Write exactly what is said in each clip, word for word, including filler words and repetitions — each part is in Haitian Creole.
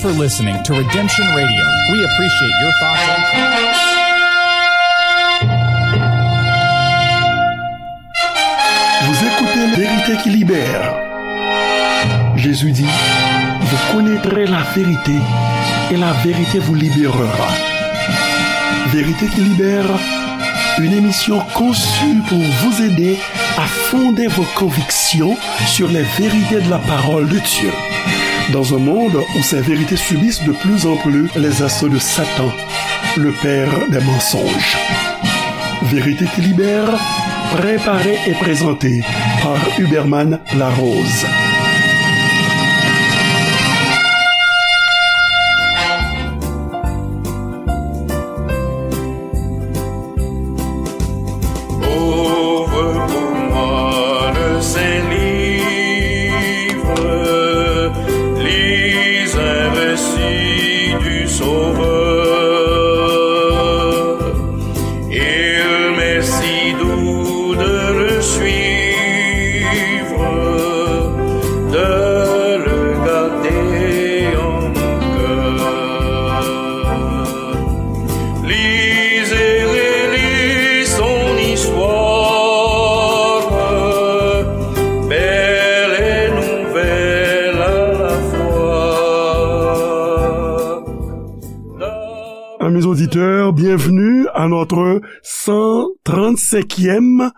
for listening to Redemption Radio. We appreciate your thoughts and comments. Vous écoutez La Vérité qui libère. Jésus dit, vous connaîtrez la vérité et la vérité vous libérera. Vérité qui libère, une émission conçue pour vous aider à fonder vos convictions sur les vérités de la parole de Dieu. Dans un monde où ces vérités subissent de plus en plus les assauts de Satan, le père des mensonges. Vérité qui libère, préparée et présentée par Huberman Larose. Ouvre pour moi le Saint-Livre, lis un récit du Sauveur. Il m'est si doux de le suivre, de le garder en mon cœur. Lis et relis son histoire, belle et nouvelle à la fois. Amis auditeurs, bienvenue à notre cent trente-cinquième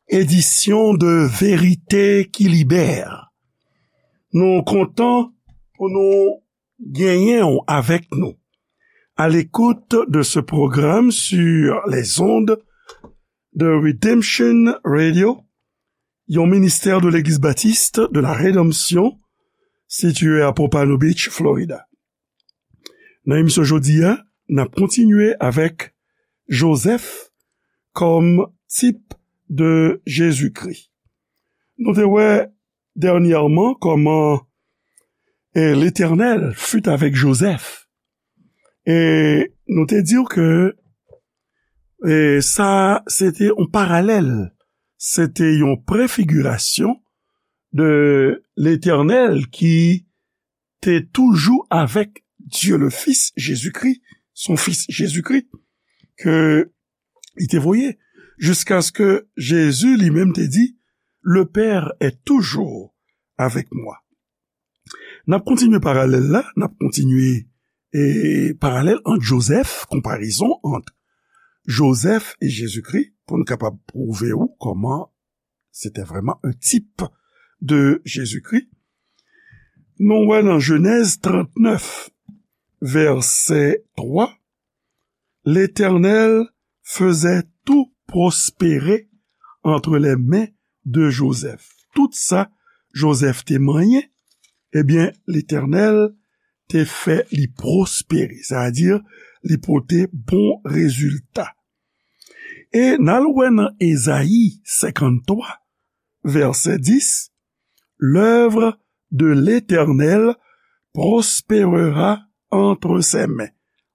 édition de Vérité qui Libère. Nou kontan pou nou genyen w avèk nou à l'écoute de ce programme sur les ondes de Redemption Radio, yon ministè de Legliz Batis de la Redanmsyon, sitiye a Pompano Beach, Florida. Nan emisyon jodi a, n ap kontinye avèk Jozèf kòm tip de Jezikri. Nou te wè dènyèman kòman, e, Letènèl fut avèk Jozèf. E nou te di w ke, e, sa, se te yon paralèl, se te yon prefigirasyon de Letènèl ki te toujou avèk Dye le Fis, Jezikri, son Fis Jezikri, ke li te voye, jiskaske Jezi li menm te di, Le Père est toujours avec moi. N ap kontinye paralèl la, n ap kontinye, e, paralèl ant Jozèf, konparezon ant Jozèf e Jezikri, pou n kapab pwouve w kòman se te vrèman un type de Jezikri. Nou wè nan Jenèz trannèf, vèsè twa, L'Éternel faisait tout prospérer entre les mains de Joseph. Tout sa Jozèf te manyen, ebyen, Letènèl te fè li pwospere, sètadi li pote bon rezilta. E n al wè nan Ezayi senkanntwa, vèsè dis, L'œuvre de l'Éternel prospérera entre ses mains,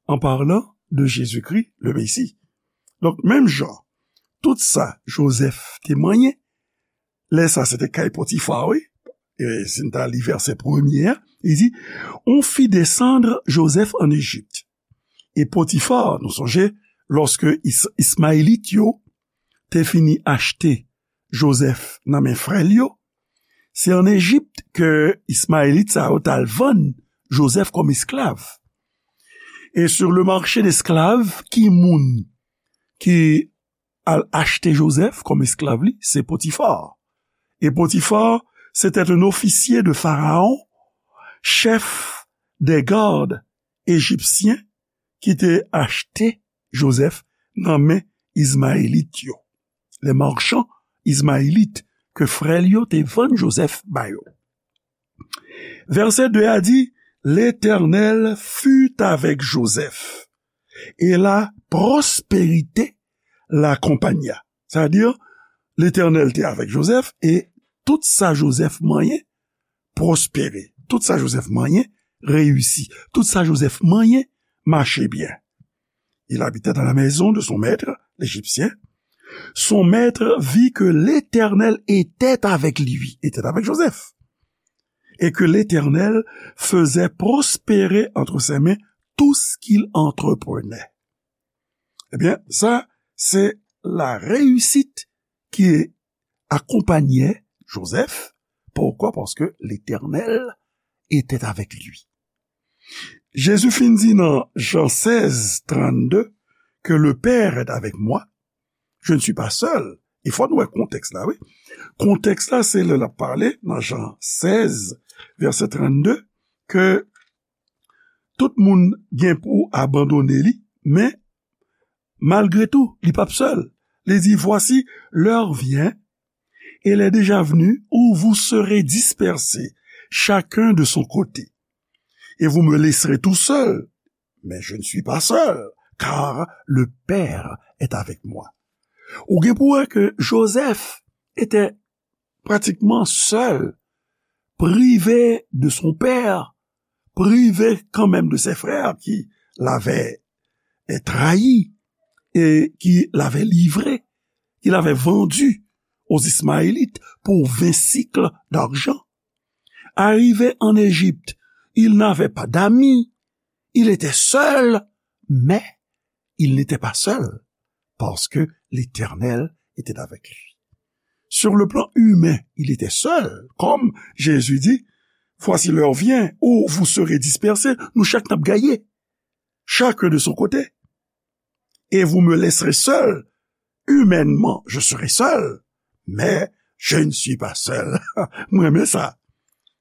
en parlant de Jésus-Christ, le Messie. Donk, menm jan, tout sa Jozèf te manyen, lè sa se te kay Potifa, wi. E si n ta li vèsè premye a, li di, On fit descendre Joseph en Égypte. E Potifa, nou sonje, lòske Is-, Ismayelit yo te fini achte Jozèf nan men frè l yo, se ann Ejip ke Ismayelit sa yo t al vann Jozèf kòm esklav. E sur le marché d'esclaves, ki moun ki al achte Jozèf kòm esklav li? Se Potifa. E Potifa, c'était un officier de Pharaon, chef des gardes égyptiens, ki te achte Jozèf nan men Izmayelit yo. Les marchands ismaélites, ke frè l yo te vann Jozèf ba yo. Vèsè de a di, L'Éternel fut avec Joseph, et la prospérité l'accompagna. Sètadi, Letènèl te avèk Jozèf, e tout sa Jozèf manyen pwospere. Tout sa Jozèf manyen reyisi. Tout sa Jozèf manyen mache byen. Il habitait dans la maison de son maître, l'Égyptien. Son maître vit que l'Éternel était avec lui, était avec Joseph. et que l'Éternel faisait prospérer entre ses mains tout ce qu'il entreprenait. Ebyen, sa, se la réussite ki akonpanye Jozèf. Poukwa? Paske Letènèl etè avèk li. Jezi fin di nan Jan sèz trannde, ke le Père est avec moi, je ne suis pas seul. E fò nou wè kontèks la, wi. Kontèks la, se lè l ap pale nan Jan sèz, vèsè trannde, ke tout moun gen pou abandone li, men malgre tou, li p ap sèl. Li di, voici, l'heure vient, et elle est déjà venue, où vous serez dispersés, chacun de son côté. Et vous me laisserez tout seul, mais je ne suis pas seul, car le Père est avec moi. Ou gen pou wè ke Jozèf etè pratikman sèl, privé de son père, privé quand même de ses frères qui l'avaient trahi et qui l'avaient livré, qui l'avaient vendu aux Ismaélites pour vingt sicles d'argent. Arrivé en Égypte, il n'avait pas d'amis, il était seul, mais il n'était pas seul, parce que l'Éternel était avec lui. Sur le plan humain, il était seul, comme Jésus dit, voici l'heure vient où vous serez dispersés, nou chak n ap gaye, chacun de son côté, et vous me laisserez seul. Humainement, je serai seul, mais je ne suis pas seul. Mwen renmen sa.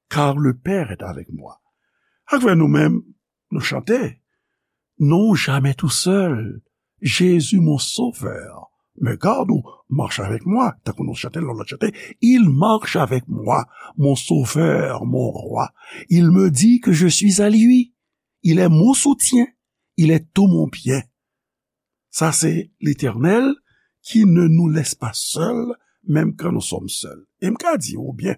Car le Père est avec moi. Avè nou menm, nou chante, non, jamais tout seul, Jésus mon sauveur me garde, ou marche avec moi, tankou nou chante lòt chante, il marche avec moi, mon sauveur, mon roi, il me dit que je suis à lui, il est mon soutien, il est tout mon bien. Sa se Letènèl ki ne nous laisse pas seuls, même quand nous sommes seuls. E m ka di w byen,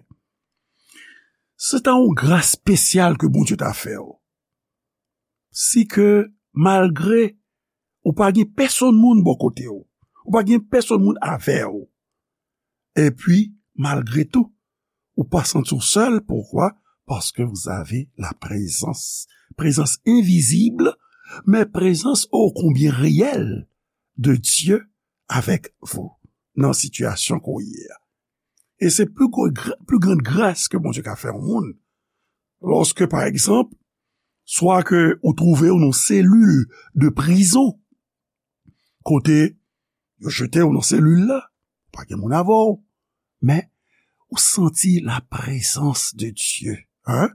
se ta yon gras espesyal ke Bondye ta fè w. Si ke malgre ou pa gen pèsonn moun bò kote w, ou pa gen pèsonn moun avè w, epi malgre tou, ou pa santi w sèl, poukwa? Paske vous avez la présence, présence invisible, mais présence ô combien réelle de Dieu avec vous nan sitiyasyon ke w ye a. E se pli gwo gra-, pli grann gras ke Bondye ka fè yon moun. Lòske, pa egzanp, swa ke ou twouve w nan selil de prizon, kote yo jete w nan selil la, pa gen moun avè w, men ou santi la présence de Dieu, hein?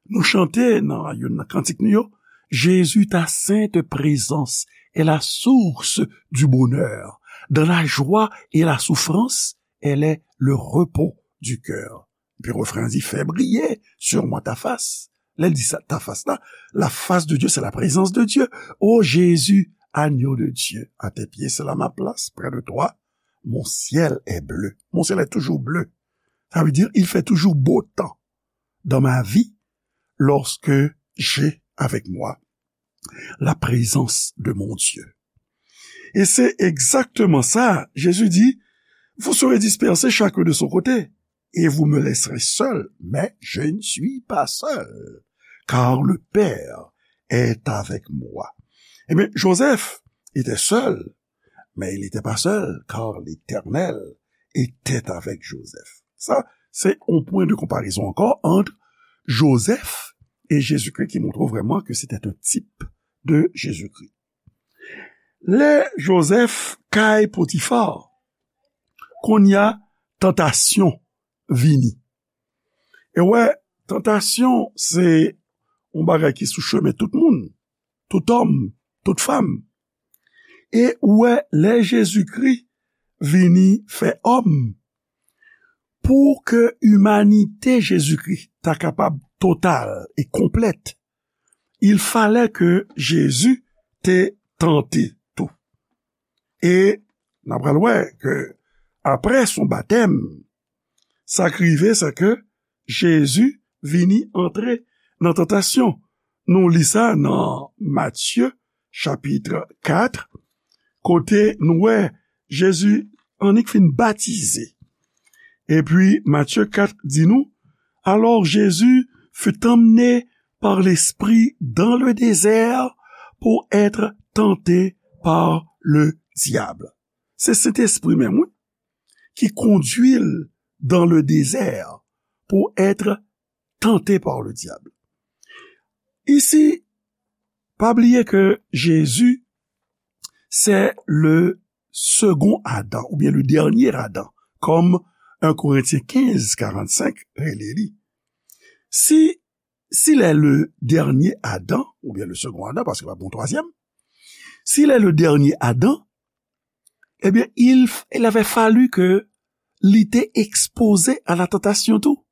Nou chante nan youn nan kantik nou yo, Jésus, ta sainte présence est la source du bonheur. Dans la joie et la souffrance, elle est le repos du cœur. Epi refren an di, fais briller sur moi ta face. Lè l di sa, ta face la, la face de Dieu, c'est la présence de Dieu. Oh Jésus, agneau de Dieu, à tes pieds, c'est là ma place, près de toi, mon ciel est bleu. Mon ciel est toujours bleu. Ça veut dire, il fait toujours beau temps dans ma vie lorsque j'ai avec moi la présence de mon Dieu. E se egzakteman sa, Jezi di, vous serez dispersés chacun de son côté, et vous me laisserez seul, mais je ne suis pas seul, car le Père est avec moi. Ebyen, Jozèf etè sèl, men li etè pa sèl, car l'Éternel etè avèk Jozèf. Sa, se yon pwen de konparezon ankò ant Jozèf e Jezikri ki montre w vrèman ke se te yon tip de Jezikri. Lè Jozèf kay Potifa, kounye a tantasyon vini. E w wè, tantasyon se yon bagay ki sou chemen tout moun, tout òm, tout fanm. E w wè, lè Jezikri vini fè òm, pou ke imanite Jezikri ta kapab total e konplèt, il fallait que Jésus te tante tou. E n ap pral wè ke apre son batèm, sa k rive, se ke Jezi vini antre nan tantasyon. Nou li sa nan Matye, chapit kat, kote nou wè Jezi annik fin batize. Epi Matye kat di nou, Alors Jésus fut emmené par l'Esprit dans le désert pour être tenté par le diable. Se Sentespri menm, wi, ki kondui l dans le désert pour être tenté par le diable. Isi, pa bliye ke Jezi se le second Adam, oubyen le dernier Adam, kòm un Korentyen kenz karannsenk rele li. Si, s'il est le dernier Adam, oubyen le second Adam, paske pa bon twazyèm, s'il est le dernier Adam, eh bien, il, il avait fallu que li te ekspoze a la tantasyon tou,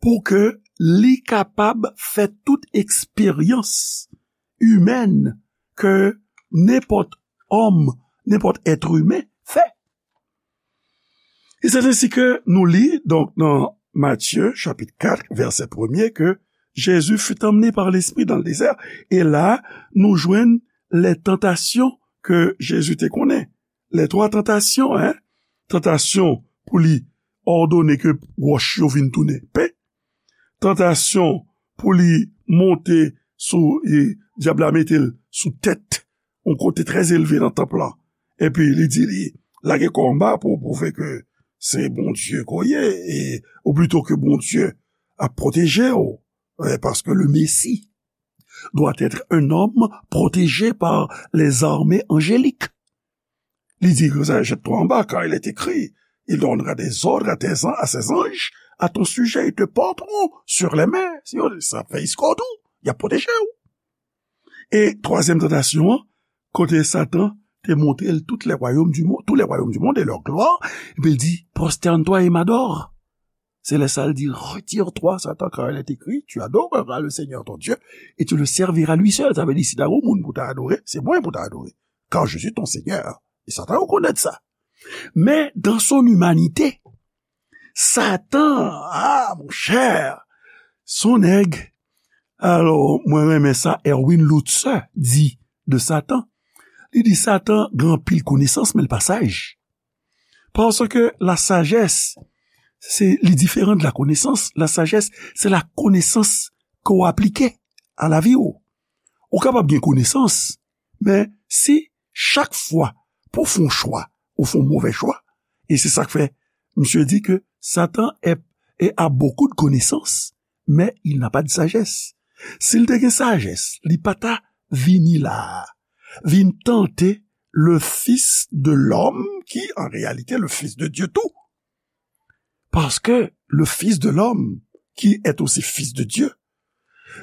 pou ke li kapab fè tout eksperyans imèn ke nenpòt òm, nenpòt èt imen fè. E c'est ainsi que nous lit donc dans Matthieu chapitre quatre, verset premier, que Jésus fut emmené par l'Esprit dans le désert. E la, nou jwenn les tentations que Jésus te konnen. Les trois tentations, hein? Tantasyon pou li òdone ke wòch yo vin tounen pen. Tantasyon pou li monte sou, e dyab la mete l sou tèt yon kote trè elve nan tanp lan. Epi li di li, lage kò anba pou pwouve ke se Bondye ke w ye, e, ou plito ke Bondye ap pwoteje w, e, paske le Messie doit être un homme protégé par les armées angéliques. Li di, jette-toi en bas, car il est écrit, il donnera des ordres à tes an-, à ses anges à ton sujet, ils te porteront sur les mains. Si yo, sa fè eskòt ou, y ap pwoteje w. E twazyèm tantasyon an, kote Satan te montre l tout les royaumes du monde, tous les royaumes du monde et leur gloire, epi l di, prosterne-toi et m'adore. Se lè sa l di, retire-toi, Satan, car il est écrit, tu adoreras le Seigneur ton Dieu et tu le serviras lui seul. Sa vle di, si ta gen moun pou ta adore, se mwen pou ta adore. Car je suis ton Seigneur. E Satan rekonèt sa. Men, dans son humanité, Satan, ah, mon cher, son nèg. Alò, mwen renmen sa Erwin Lutzer di de Satan. Li di Satan gen anpil konesans, men l pa saj. Paske la sajès, se, li diferan de la konesans. La sajès, se la konesans ke w aplike a lavi w. Ou kapab gen konesans, men si chak fwa pou w fè yon chwa, ou fè yon move chwa, e se sa k fè misye di ke Satan est, est, a beaucoup de connaissances, mais il n'a pas de sagesse. Si l te gen sajès, li pa ta vini la a, vin tante le Fils de l'homme, qui en réalité le Fils de Dieu tout. Paske le Fils de l'homme, qui est aussi Fils de Dieu,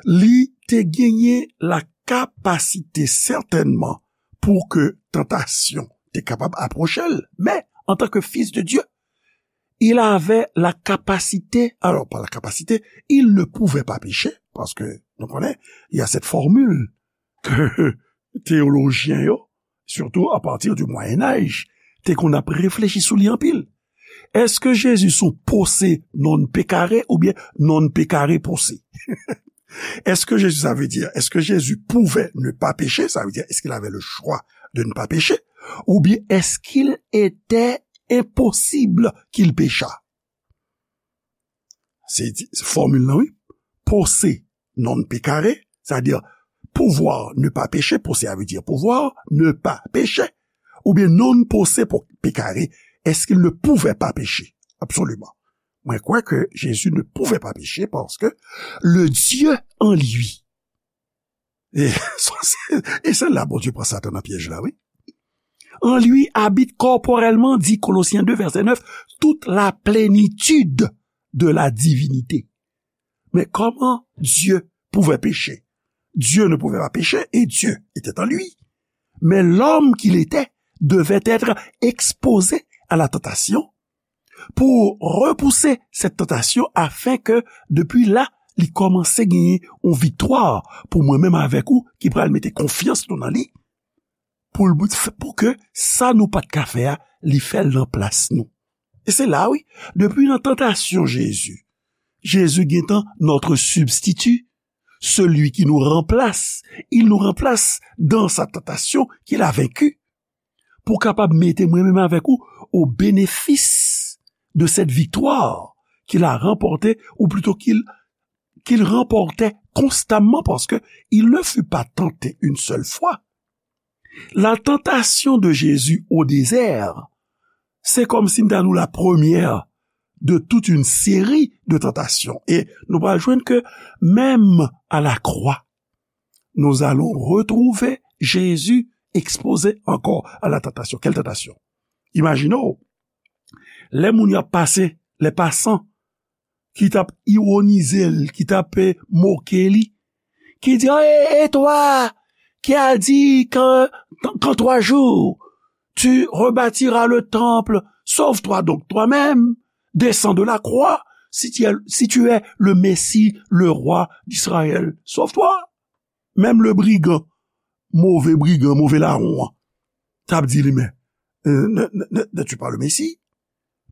li te genyen la kapasite sètènman pou ke tantasyon te kapab apwoche l. Men, antanke Fils de Dieu, il avait la capacité, alors pas la capacité, il ne pouvait pas pécher, paske nou konnen, il y a cette formule ke teyolojyen yo, surtout à partir du Moyen Âge, te konn ap reflechi sou li anpil. Èske Jezi se yon pose non pecare oubyen non pecare pose? Est-ce que Jésus, ça veut dire, est-ce que Jésus pouvait ne pas pécher? Ça veut dire, est-ce qu'il avait le choix de ne pas pécher? Oubyen est-ce qu'il était impossible qu'il péchât? Se di, se fòmil lan, wi. Pose non pecare, c'est-à-dire pouvoir ne pas pécher, pose a vle di pouvoir, ne pas pécher, oubyen non pose po-, pecare, est-ce qu'il ne pouvait pas pécher? Absolument. Mwen kwè ke Jésus ne pouvait pas pécher parce que le Dieu en lui. E, e se la Bondye pran Satan nan pyèj la, wi. En lui habite corporellement, dit Colossiens deux, verset neuf, toute la plénitude de la divinité. Mais comment Dieu pouvait pécher? Dieu ne pouvait pas pécher et Dieu était en lui. Mais l'homme qu'il était devait être exposé à la tentation pour repousser cette tentation afin que, depuis là, li kòmanse genyen yon viktwa pou mwen menm avèk ou ki pral mete konfyans nou nan li, pou l, pou ke sa nou pa t ka fè a, li fè l nan plas nou. E se la, wi, depi nan tantasyon Jezi, Jezi gentan notre substitut, celui qui nous remplace, il nous remplace dans sa tentation qu'il a vaincue, pou kapab mete mwen menm avèk ou au bénéfice de cette victoire qu'il a remporté, ou plutôt qu'il qu'il remportait constamment, parce que il ne fut pas tenté une seule fois. La tentation de Jésus au désert, c'est comme si nous avons la première de toute une série de tentations. Et nous allons joindre que même à la croix, nous allons retrouver Jésus exposé encore à la tentation. Quelle tentation? Imaginez, les moun y a passé, les passants, ki t ap ironize l, ki t ap, eh, moke li, ki di, "Ah, et, et toi, qui a dit qu'en, qu'en trois jours, tu rebâtiras le temple, sauve-toi donc toi-même, descends de la croix, si tu es, si tu es le Messie, le roi d'Israël, sauve-toi." Menm le brigan, move brigan, move lawon an, t ap di li, "Men, euh, ne, ne, ne, n'es-tu pas le Messie?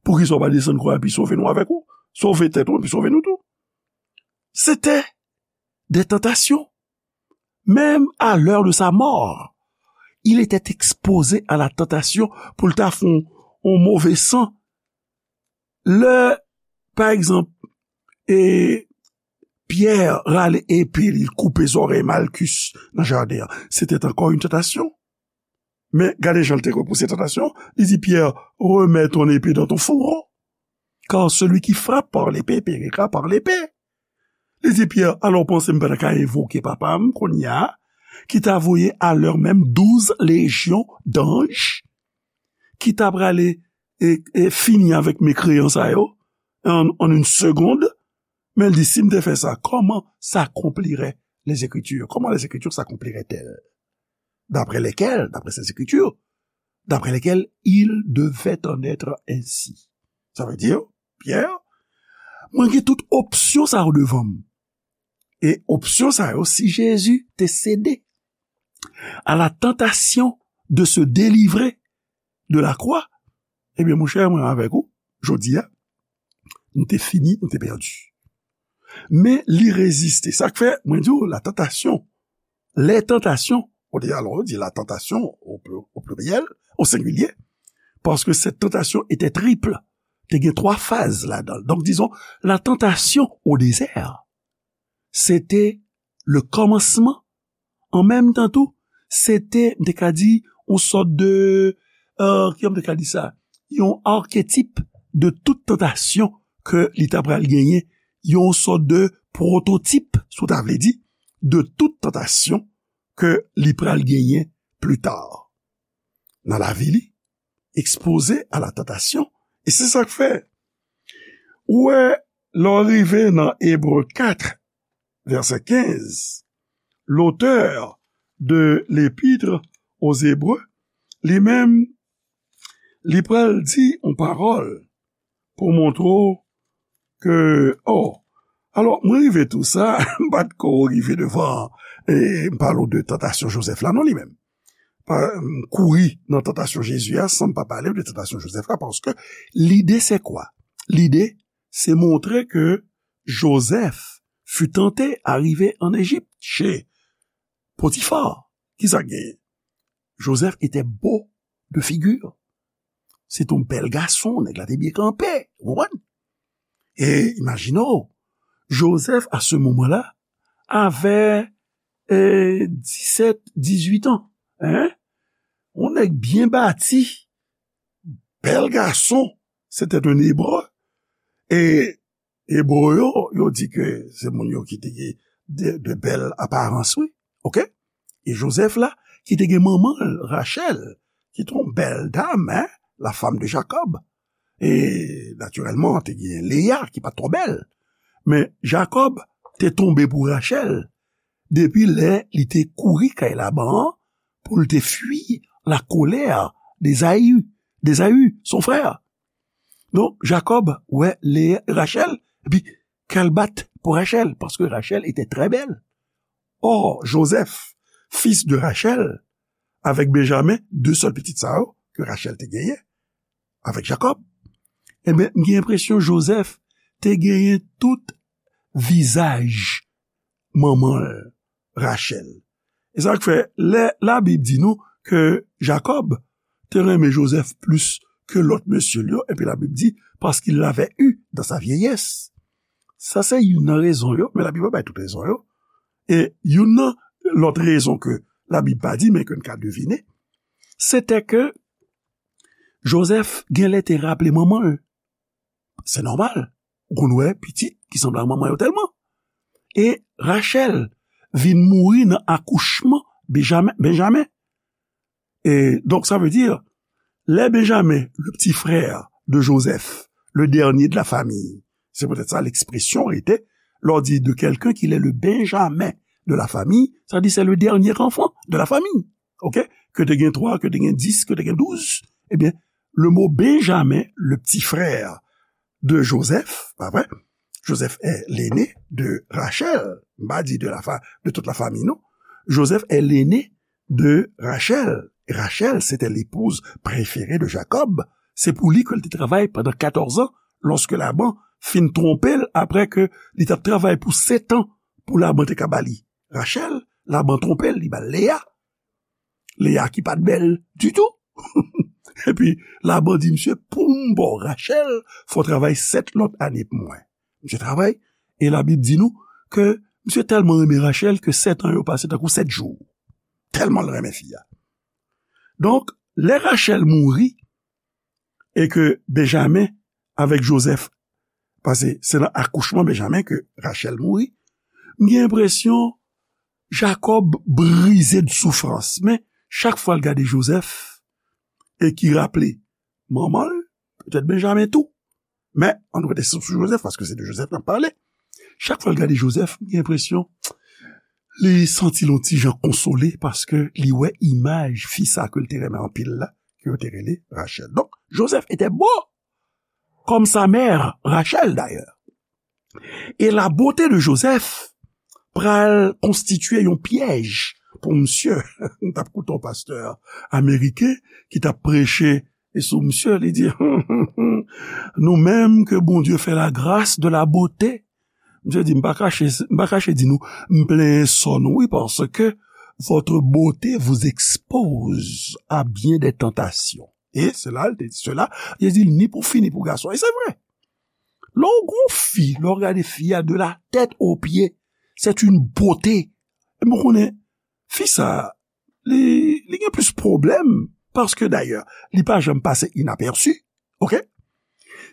Poukisa w pa desann kwa epi sove nou avèk ou? Sove tèt ou epi sove nou tou." C'était des tentations. Même à l'heure de sa mort, il était exposé à la tentation pou l ta fè yon, yon move san. Lè, pa egzanp, e Pyè rale epe li, l koupe zòrèy Malkis nan jaden an, c'était encore une tentation. Men gade jan l te repouse tantasyon. Li di Pyè, "Remets ton épée dans ton fourreau, car celui qui frappe par l'épée périra par l'épée." Li di Pyè, "Alò, w panse m pa ta ka envoke papa m kounye a, ki ta voye alè menm douz lejyon danj, ki ta prale e, e fini avèk mekreyan sa yo an, an une seconde?" Men l di, "Si m te fè sa, comment s'accompliraient les Écritures? Comment les Écritures s'accompliraient-elles? D'après lesquelles, d'après ces Écritures, d'après lesquelles il devait en être ainsi." Ça veut dire, Pierre, mwen gen tout opsyon sa yo devan m. E opsyon sa yo, si Jezi te sede à la tentation de se délivrer de la croix, ebyen, monchè, mwen avèk ou, jodi a, nou te fini, nou te pèdi. Men li reziste. Sa k fè, mwen di w, la tentation, les tentations, ou di, alò, ou di la tentation au plu-, au pluriel, au singulier, parce que cette tentation était triple. Te gen twa faz ladan l. Donk, dizon, la tentation au désert, se te le kòmansman. An menm tan tou, se te, m te ka di, yon sòt de, euh, kijan m te ka di sa? Yon arketip de tout tantasyon ke li ta pral genyen, yon sòt de pwototip, si w ta vle di, de tout tantasyon ke li pral genyen pli ta nan lavi li, ekspoze a la tantasyon. E se sa k fè, ou wè, lè w rive nan Ebre kat, vèsè kenz, l'auteur de l'Épître aux Hébreux, li menm, li pral di yon pawòl pou montre w ke, oh, alò, mwen rive tou sa, m pa t ko rive devan, e m pale w de tantasyon Jozèf la, non, li menm. Pa, m kouri nan tantasyon Jezi a san m pa pale w de tantasyon Jozèf la, paske lide se kwa? Lide se montre ke Joseph fut tenté à arriver en Égypte, chez Potiphar. Kisa k genyen? Joseph était beau de figure. Se te yon bèl gason, nèg la te byen kanpe, ou konprann? E imajine w, Joseph, à ce moment-là, avait, eh, dix-sept, dix-huit ans, hein? Yon nèg byen bati, bèl gason, c'était un Hébreu. E Ebre yo, yo di ke se moun yo ki te gen de, de bèl aparans, wi. Oke? E Joseph la, ki te gen manman l, Rachel, ki te yon bèl dam, hein, la femme de Jacob. E, natirèlman, te gen Leya, ki pa t twò bèl. Men Jacob te tonbe pou Rachel depi lè li te kouri kay Laban an pou l te fui la colère d'Ésaü, d'Ésaü, son frère. Donk, Jacob wè Leya, Rachel, epi kè l bat pou Rachel, paske Rachel était très belle. Or, Joseph, fils de Rachel, avec Benjamin, de sèl pitit sa yo ke Rachel te genyen avèk Jacob, ebyen, m gen enpresyon Joseph te genyen tout vizaj manman l, Rachel. E sa k fè, lè Labib di nou ke Jacob te renmen Joseph plis ke lòt mesye l yo, epi Labib di, parce qu'il l'avait eu dans sa vieillesse. Sa se youn nan rezon yo, men Labib pa bay tout rezon yo. E youn nan lòt rezon ke Labib pa di, men ke n ka devine, se te ke Jozèf genlè te raple manman l. Se nòmal. Ou konn wè pitit ki sanble ak manman yo tèlman. E Rachèl vin mouri nan akouchman Benjamen. Benjamen. Et donc, ça veut dire, lè Benjamin, le petit frère de Joseph, le dernier de la famille, c'est peut-être ça l'expression, était, lè w di de quelqu'un qu'il est le Benjamin de la famille, ça dit c'est le dernier enfant de la famille. OK? Ke te gen twa, ke te gen dis, ke te gen douz, ebyen, le mot Benjamin, le petit frère de Joseph, pa vre? Joseph est l'aîné de Rachel. M pa di de la fa, de toute la famille, non. Joseph est l'aîné de Rachel. Et Rachel, c'était l'épouse préférée de Jacob. Se pou li ke l te travay pandan katòz an, lòske Laban fin twonpe l apre ke li t ap travay pou sèt an pou Laban te ka ba li Rachel, Laban twonpe l, li ba l Leya. Leya ki pa t bèl ditou. Epi Laban di misye, pou m ba w Rachel, fò w travay sèt lòt ane pou mwen. Misye travay, e Labib di nou ke misye tèlman renmen Rachel ke sèt an yo pase tankou sèt jou. Tèlman l renmen fi a. Donk, lè Rachel mouri, e ke Benjamin avèk Joseph, paske se nan akouchman Benjamin ke Rachel mouri, m gen enpresyon Jacob brize de soufrans. Men, chak fwa l gade Joseph, e ki raple manman l, petèt Benjamin tou. Men, ann rete sou Joseph, paske se de Joseph n ap pale. Chak fwa l gade Joseph, m gen enpresyon, li santi l yon ti jan konsole, paske li wè imaj fi sa ke l te renmen anpil la, ke yo te rele Rachel. Donk, Joseph était beau, comme sa mère Rachel d'ailleurs. E la beauté de Joseph pral konstitye yon pyèj pou misye. M t ap koute yon pastè ameriken ki t ap preche e sou misye, li di, nou menm ke Bondye fè la grâce de la beauté, misye di, m pa kache, m pa kache di nou, m plenyen sò nou, wi, paske votre beauté vous expose à bien des tentations. Et cela, cela, li di, ni pou fi, ni pou gason. E se vre. Lè w gon fi, lè w gade fi a de la tèt o pye, c'est une beauté. E mwen konnen, fi sa, li, li gen plis pwoblèm, paske dayè, li pa janm pase inapèsi, OK?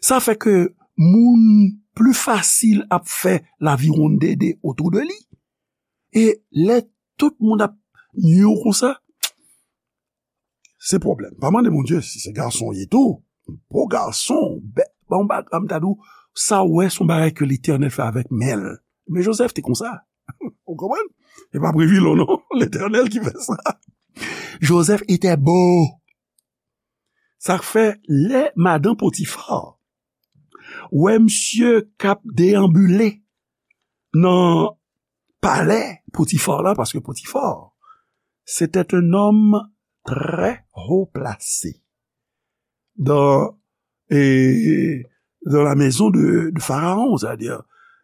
Sa fè ke moun pli fasil ap fè laviwonndede otou de li. E lè tout moun ap nye w konsa, se pwoblèm. Pa mande Bondye si se gason w ye tou. Bon gason, bè, bon bagay, m ta di w, sa w wè, se yon bagay ke Letènèl fè avèk men l. Men Joseph te konsa. Ou konprann? E pa Previlon, non. Letènèl ki fè sa. Joseph était beau. Sa k fè, lè madan Potifar wè misye k ap deyanbile nan palè Potifar la, paske Potifar, c'était un homme très haut placé dans, et, dans la maison de, de Pharaon, c'est-à-dire,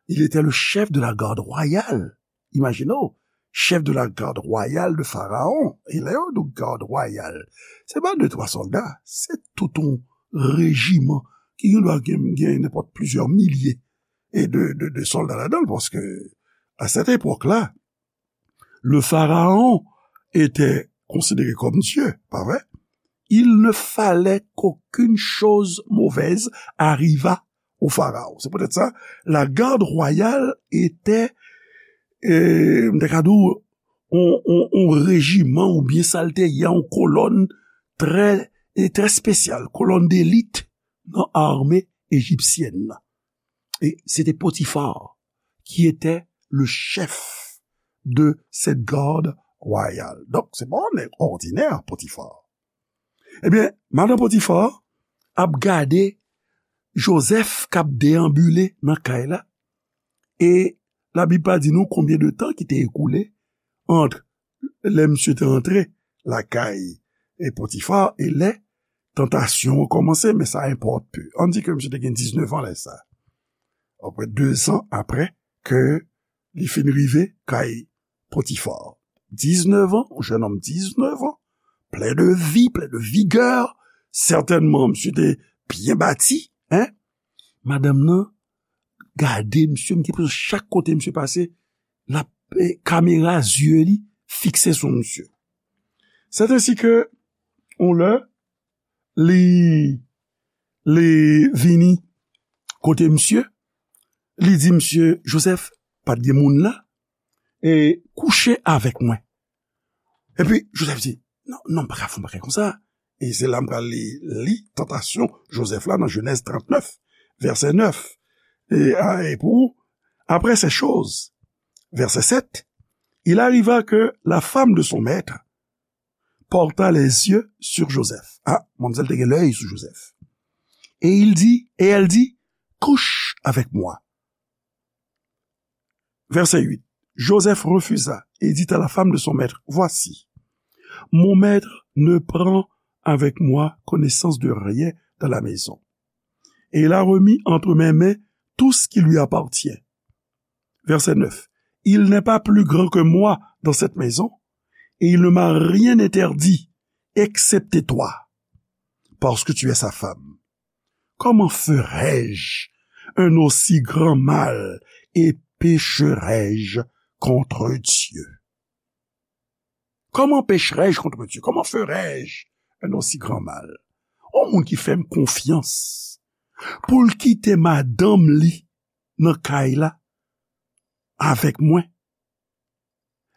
il était le chef de la garde royale. Imajine w, chef de la garde royale de Pharaon. E lè yo di w garde royale, se pa de twa sòlda, se tout yon rejiman ki gen dwa gen, gen nenpòt plizyè milye e de, de, de sòlda ladan l, paske à cette époque-là, le pharaon était considéré comme Dieu, pa vre? Il ne fallait qu'aucune chose mauvaise arrivât au pharaon. C'est peut-être ça. La garde royale était, euh, m te ka di w, on, on, on rejiman oubyen sa l te ye, on kolòn trè, e trè espesyal, kolòn delit nan ame ejipsyèn nan. E se te Potifar ki était le chef de cette garde royale. Donk, se pa yon nèg òdinè, Potifar. Ebyen, madan Potifar ap gade Joseph k ap deyanbile nan kay la. E Labib pa di nou konbyen de tan ki te ekoule ant lè misye te antre lakay e Potifar e lè tantasyon an kòmanse, men sa enpòte pe. Ann di ke misye te gen diznèf an lè sa. Apre, dezan apre ke li fin rive kay Potifar. Diznèf an, yon jennonm diznèf an, plen de vi, plen de vigè, Sètènman, misye te byen bati, en. Madanm nan gade misye, m gen enpresyon chak kote misye pase, l ap, eh, kamera zye li fikse sou misye. Sèt ensi ke, yon lè, li, li vini kote misye, li di misye, Joseph, pa t gen moun la, e kouche avèk mwen. Epi, Joseph di, non, non, m pa ka fè yon bagay konsa. E se la m pral li, li tantasyon Joseph la nan Jenèz trannèf, vèsè nèf. Et, ah, et pour, après ces choses, verset sept, il arriva que la femme de son maître porta les yeux sur Joseph. Ah, manmzèl te gen lèy sou Joseph. Et il dit, et elle dit, couche avec moi. Verset huit. Joseph refusa et dit à la femme de son maître, voici, mon maître ne prend avec moi connaissance de rien dans la maison. Et il a remis entre mes mains tout ce qui lui appartient. Verset neuf. Il n'est pas plus grand que moi dans cette maison, et il ne m'a rien interdit, excepté toi, parce que tu es sa femme. Comment ferai-je un aussi grand mal et pécherai-je contre Dieu? Comment pécherai-je contre Dieu? Comment ferai-je un aussi grand mal? On moun ki fè m konfyans pou l kite madanm li nan kay la avèk mwen,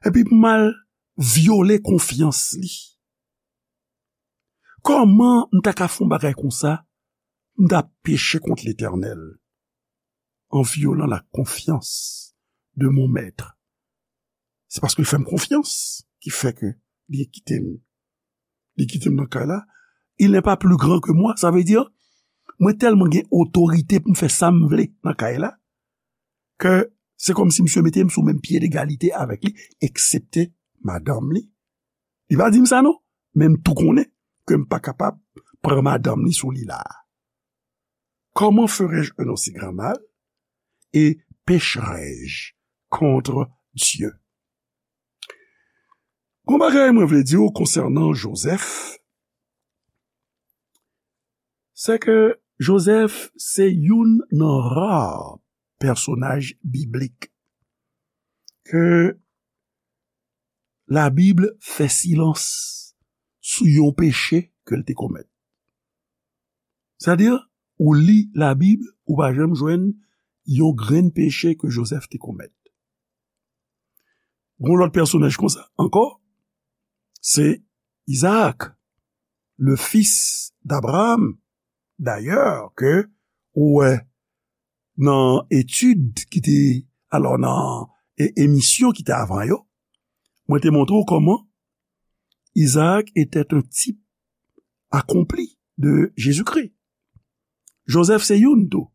epi pou m al vyole konfyans li. Kòman m ta ka fè yon bagay konsa? M ta peche kont Letènèl en violant la confiance de mon maître. Se paske l fè m konfyans ki fè ke li kite m. Li kite m nan kay la. Il n'est pas plus grand que moi. Sa vle di, mwen tèlman gen otorite pou m fè sa m vle nan kay la, ke se kòmsi misye mete m sou menm pye degalite avèk li, eksepte madanm li. Li pa di m sa non, men m tou konnen ke m pa kapab pran madanm li sou li la. Comment ferai-je un aussi grand mal? Et pécherai-je contre Dieu? Gon bagay mwen vle di w konsènan Joseph, se ke Joseph se youn nan ra pèsonaj biblik ke Labib fè silans sou yon peche ke l te komèt. Sètadi, ou li Labib, ou pa janm jwenn yon grenn peche ke Joseph te komèt. Gon lòt pèsonaj konsa ankò, se Izaak, le fils d'Abraham. Dayè, ke ou wè nan etid ki te, alò, nan e-, emisyon ki te avan yo, mwen te montre w kòman Izaak était un type accompli de Jésus-Christ. Joseph se youn tou.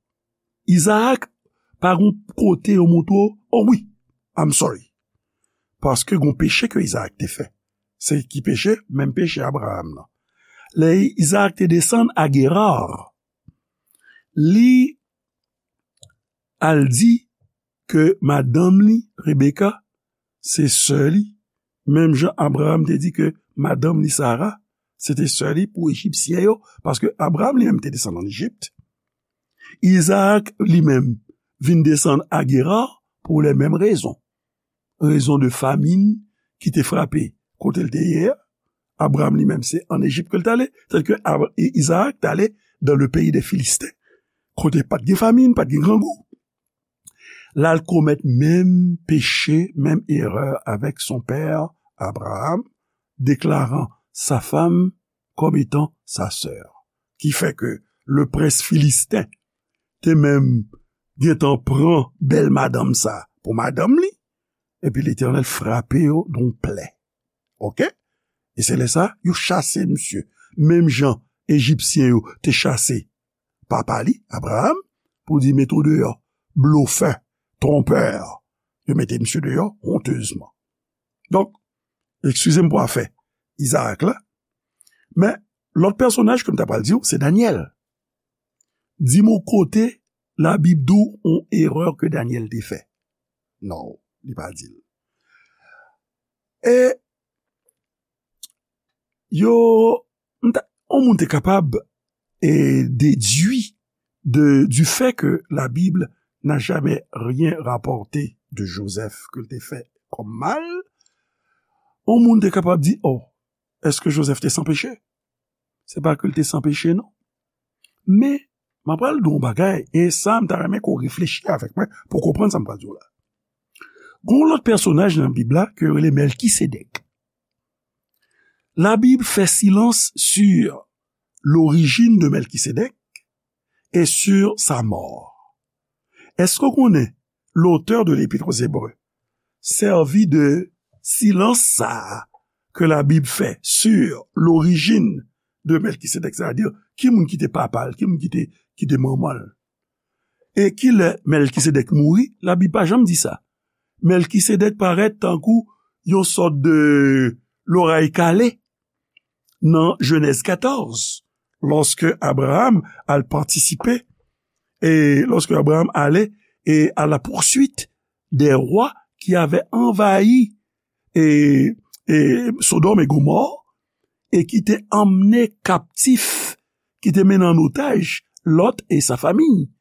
Izaak pa gon kote yo montre w, oh wi, I'm sorry. Paske gon peche ke Izaak te fè. Se ki peche? Menm peche Abraham nan. Lè Izaak te desann a Gerar, li al di ke madanm li, Rebeka, se sè li, menm jan Abraham te di ke madanm li, Sara, se te sè li pou Ejipsyen yo, paske Abraham li menm te desann ann Ejip. Izaak li menm vin desann a Gerar pou les mêmes raisons. Rezon de famin ki te frape kote l te ye a. Abraham li menm se ann Ejip ke l t ale, tandis ke Ab-, I-, Izaak t ale dans le pays des Philistins, kote pa t gen famin, pa t gen grangou. L al komèt menm peche, menm erè avèk son père Abraham, déclarant sa femme comme étant sa sœur. Ki fè ke le prince philistin te menm gentan pran bèl madanm sa pou madanm li, epi Letènèl frape yo donk plè. Oke? E se lè sa, yo chase misye. Menm jan Ejipsyen yo te chase papa li, Abraham, pou di mete w deyò, blofè, twonpè. Yo mete misye deyò, hontezman. Donk, eskize m pou afè Izaak la, men lòt pèsonaj ke m ta pral di w, se Danyèl. Di m yon kote Labib di w yon erè ke Danyèl te fè. Non, li pa di l. E yo, m ta, On moun te kapab e dedui de, du fait que la Bible n'a jamais rien rapporté de Joseph ke l te fè kòm mal, on moun te kapab di, oh, èske Joseph te san peche? Se pa ke l te san peche, non. Men, m ap pral di w yon bagay, e sa, m ta renmen ke w reflechi avèk mwen pou w konprann sa m pral di w la. Gon lòt pèsonaj nan Bib la ke yo rele Mèlkisedèk. La Bible fait silence sur l'origine de Melchisédek et sur sa mort. Èske w konnen l'auteur de l'Épître aux Hébreux sèvi de silans sa a ke la Bib fè sur l'origine de Melchisédek, sètadi ki moun ki te papa l, ki moun ki te, ki te manman l? E kilè Melkisedèk mouri? Labib pa janm di sa. Melkisedèk parèt tankou yon sòt de loray kale nan Jenèz katòz, lòske Abraram al patisipe, e lòske Abraram ale e à la poursuite des rois qui avaient envahi e, e Sodòm e Gomò, e ki te emmené captif, ki te mennen an otaj Lot et sa famille.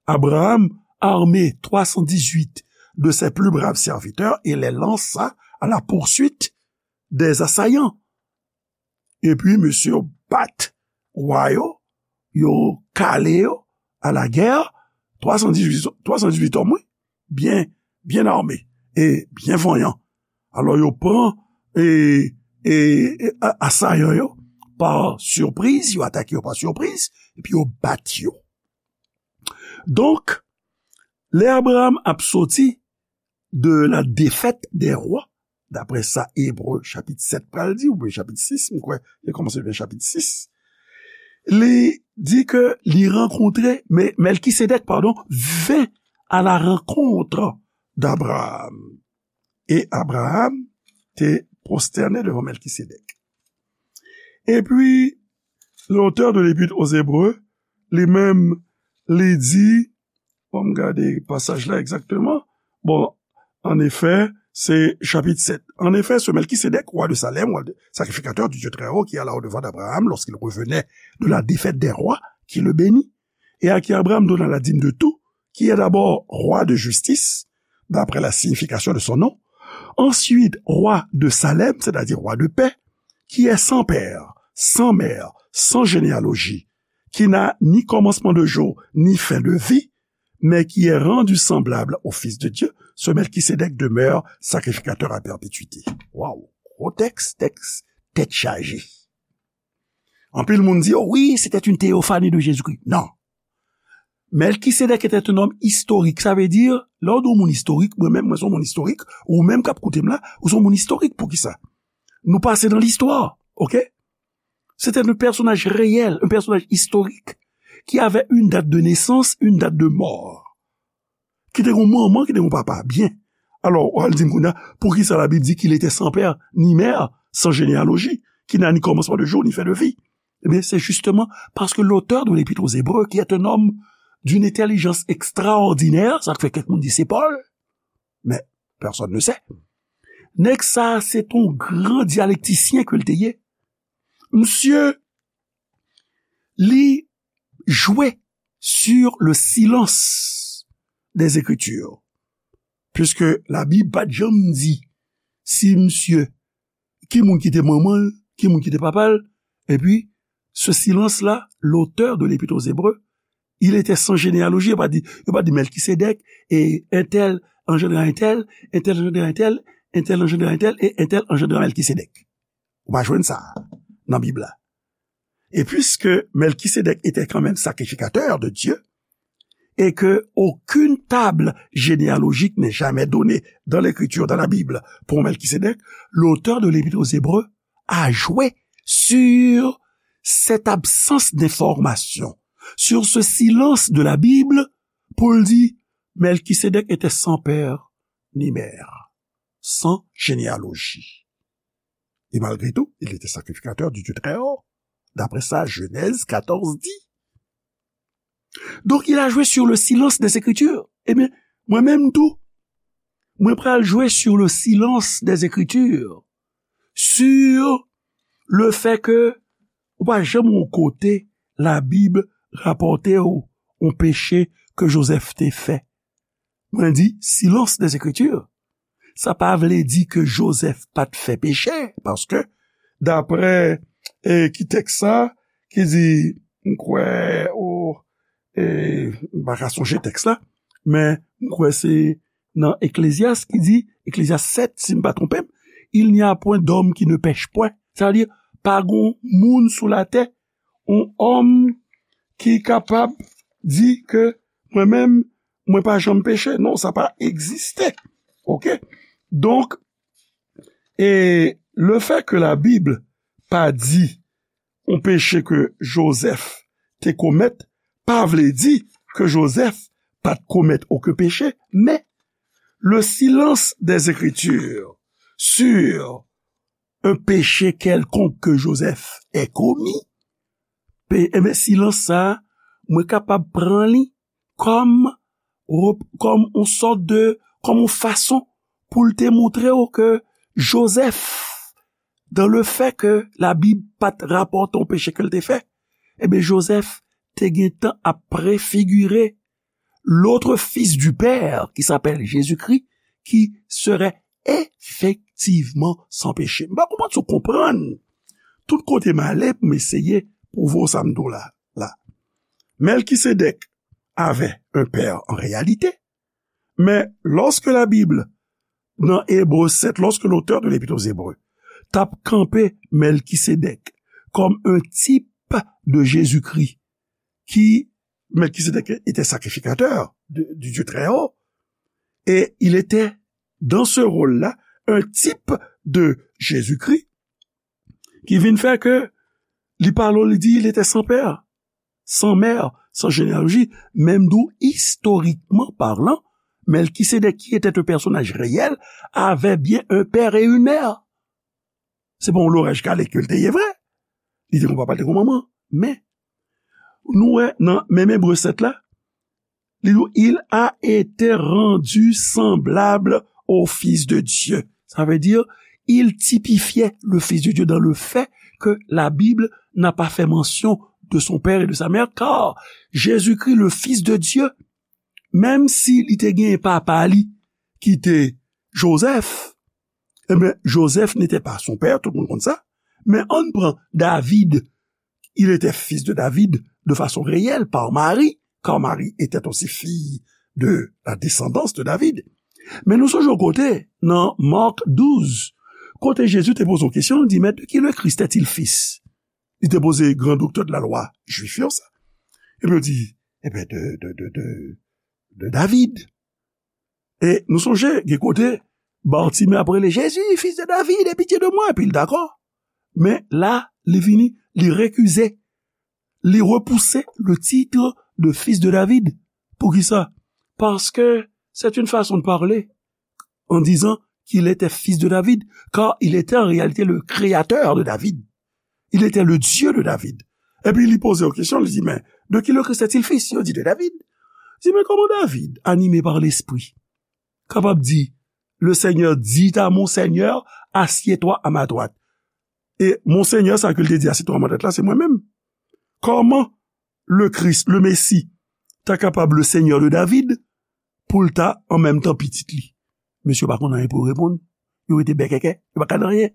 Abraham armé trois cent dix-huit de ses plus braves serviteurs et les lança à la poursuite des assaillants. Epi mesye yo bat wa yo, yo kale yo à la guerre, twa san dizuit, twa san dizuit òm, wi, byen, byen armé e byen vanyan. Alò, yo pran e, e, e a-, asayan yo pa sipriz, yo atake yo pa sipriz, epi yo bat yo. Donk, lè Abraham ap soti de la défaite des rois, daprè sa Ebre chapit sèt pral di, oubyen chapit sis, m kwè, li kòmanse byen chapit sis, li di ke li rankontre, men Melkisedèk, padon, vint à la rencontre d'Abraham. Et Abraham te prosterné devant Melkisedèk. Epi, l'auteur de l'Épître aux Hébreux, li menm, li di, bon, m gade pasaj la egzakteman. Bon, en effet, c'est chapitre sept. En effet, ce Melchisédek, roi de Salem, roi de, sacrificateur du Dieu très haut, qui alla au-devant d'Abraham lorsqu'il revenait de la défaite des rois, qui le bénit, et à qui Abraham donna la dîme de tout, qui est d'abord roi de justice, d'après la signification de son nom, ensuite roi de Salem, c'est-à-dire roi de paix, qui est sans père, sans mère, sans généalogie, qui n'a ni commencement de jour, ni fin de vie, mais qui est rendu semblable au Fils de Dieu, ce Melchisédek demeure sacrificateur à perpétuité. Waw, gwo tèks, tèks, tèt chaje. Anpil moun di, oh oui, c'était une théophanie de Jésus-Christ. Non. Melkisedèk était un homme historique. Sa vle di, lè w di yon moun istorik, mwen menm, mwen se yon moun istorik, ou menm k ap koute m la, ou se yon moun istorik. Poukisa? Nou pase nan listwa, oke? C'était un personnage réel, un personnage historique, qui avait une date de naissance, une date de mort. Ki te gon manman, ki te gon papa. Byen. Alò, w al di m kounye a, poukisa Labib di qu'il était sans père ni mère, sans généalogie, qui n'a ni commencement de jour, ni fin de vie? Eh bien, c'est justement parce que l'auteur de l'Épître aux Hébreux, qui est un homme d'une intelligence extraordinaire, sa k fè kèk moun di se Pòl, mais personne ne sait. Nèg sa, se t on gran dyalektisyen ke l te ye. Misye, li jwe sur le silence des Écritures. Puisque Labib pa t janm di si misye, ki moun ki te manman l, ki moun ki te papa l, epi ce silence-là, l'auteur de l'Épître aux Hébreux, il était sans généalogie. Yo pa di, yo pa di Melkisedèk, e entèl anjandre entèl, entèl anjandre entèl, entèl anjandre entèl, e entèl anjandre Melkisedèk. Ou pa jwenn sa nan Bib la. Et puisque Melchisédek était quand même sacrificateur de Dieu, et que aucune table généalogique n'est jamais donnée dans l'Écriture, dans la Bible, pour Melchisédek, l'auteur de l'Épître aux Hébreux a joué sur cette absence d'information, sur ce silence de la Bible, pou l di, Melchisédek était sans père ni mère, sans généalogie. Et malgré tout, il était sacrificateur du Dieu très haut, d'après ça Genèse quatorze dit. Donc, il a joué sur le silence des Écritures. Ebyen, mwen menm tou, mwen pral jwe sur le silence des Écritures, sur le fait que, Pa janm yon kote Labib rapòte w yon peche ke Jozèf te fè. Mwen di silence des Écritures. Sa pa vle di ke Jozèf pa t fè peche, paske daprè e, ki tèks sa, ki di, m kwè, o, e, m pa ka sonje tèks la, men m kwè se nan Eklezyas ki di, Eklezyas sèt, si m pa twonpe m, il n'y a point d'homme qui ne pèche point. Sa vle di, pa gon moun sou latè, yon òm ki kapab di ke mwen menm, mwen pa janm peche. Non, sa pa egziste. Oke? Donk, e le fè ke Labib pa di yon peche ke Jozèf te komèt, pa vle di ke Jozèf pa t komèt okenn peche, men le silence des Écritures sur un péché quelconque que Joseph ait commis, pe, enben, silans sa a, mwen kapab pran li kòm, kòm yon sòt de, kòm yon fason pou l te montre w ke Jozèf, dans le fait que Labib pa t rapòte yon peche ke l te fè, enben, Jozèf te gentan ap prefigire l'autre fils du Père, qui s'appelle Jésus-Christ, qui serait effectivement sans péché. M pa konprann si w konprann tout kote m ale pou m eseye pwouve w sa m di w la. La. Melkisedèk avait un père en réalité, mais lorsque la Bible, dans Hébreux sept, lorsque l'auteur de l'Épître aux Hébreux t ap kanpe Melkisedèk comme un type de Jésus-Christ, qui Melkisedèk était sacrificateur de, du Dieu très haut, et il était dans ce rôle-là un type de Jésus-Christ, ki vin fè ke li pale, li di, il était sans père, sans mère, sans généalogie, menm d'où, historiquement parlant, Melkisedèk, qui était un personnage réel, avait bien un père et une mère. Se pa yon loraj kale ke l te ye vre. Li te gon papa, l te gon manman. Men, nou wè nan menm Ebre sèt la, li di, il a été rendu semblable au Fils de Dieu. Ça veut dire, il typifiait le Fils de Dieu dans le fait que la Bible n'a pas fait mention de son père et de sa mère, car Jésus-Christ, le Fils de Dieu, menm si li te gen papa li ki te Jozèf, eh bien, Joseph n'était pas son père, tout le monde konn sa. Men ann pran David, il était fils de David de façon réelle par Marie, car Marie était aussi fille de la descendance de David. Men nou sonje yon kote, nan Mark douz, kote Jezi te poze yon kesyon, li di, mais de qui le Christ est-il fils? Li te poze gran doktè de la lwa jwif yo sa. Epi yo di, eh bien, de, de, de, de, de David. E nou sonje, gen kote, Bartimé ap rele, Jésus, fils de David, aie pitié de moi, epi l dakò. Men la, li vini, li rekize, li repouse le titre de fils de David. Poukisa? Parce que c'est une façon de parler en disant qu'il était fils de David, car il était en réalité le créateur de David. Il était le Dieu de David. Epi li poze yon kesyon, li di, mais de qui le Christ est-il fils? Yo di, de David. Li di, mais comment David, animé par l'Esprit, kapab di, le Seigneur dit à mon Seigneur, assieds-toi à ma droite. E mon Seigneur, sa ke l te di, assieds-toi à ma droite la, se mwen menm. Kòman le Christ, le Messie, ta kapab le Seigneur de David, pou l ta an menm tan pitit li? Mesye pa konn anyen pou yo reponn. Yo rete bèkèkè, yo pa ka di anyen.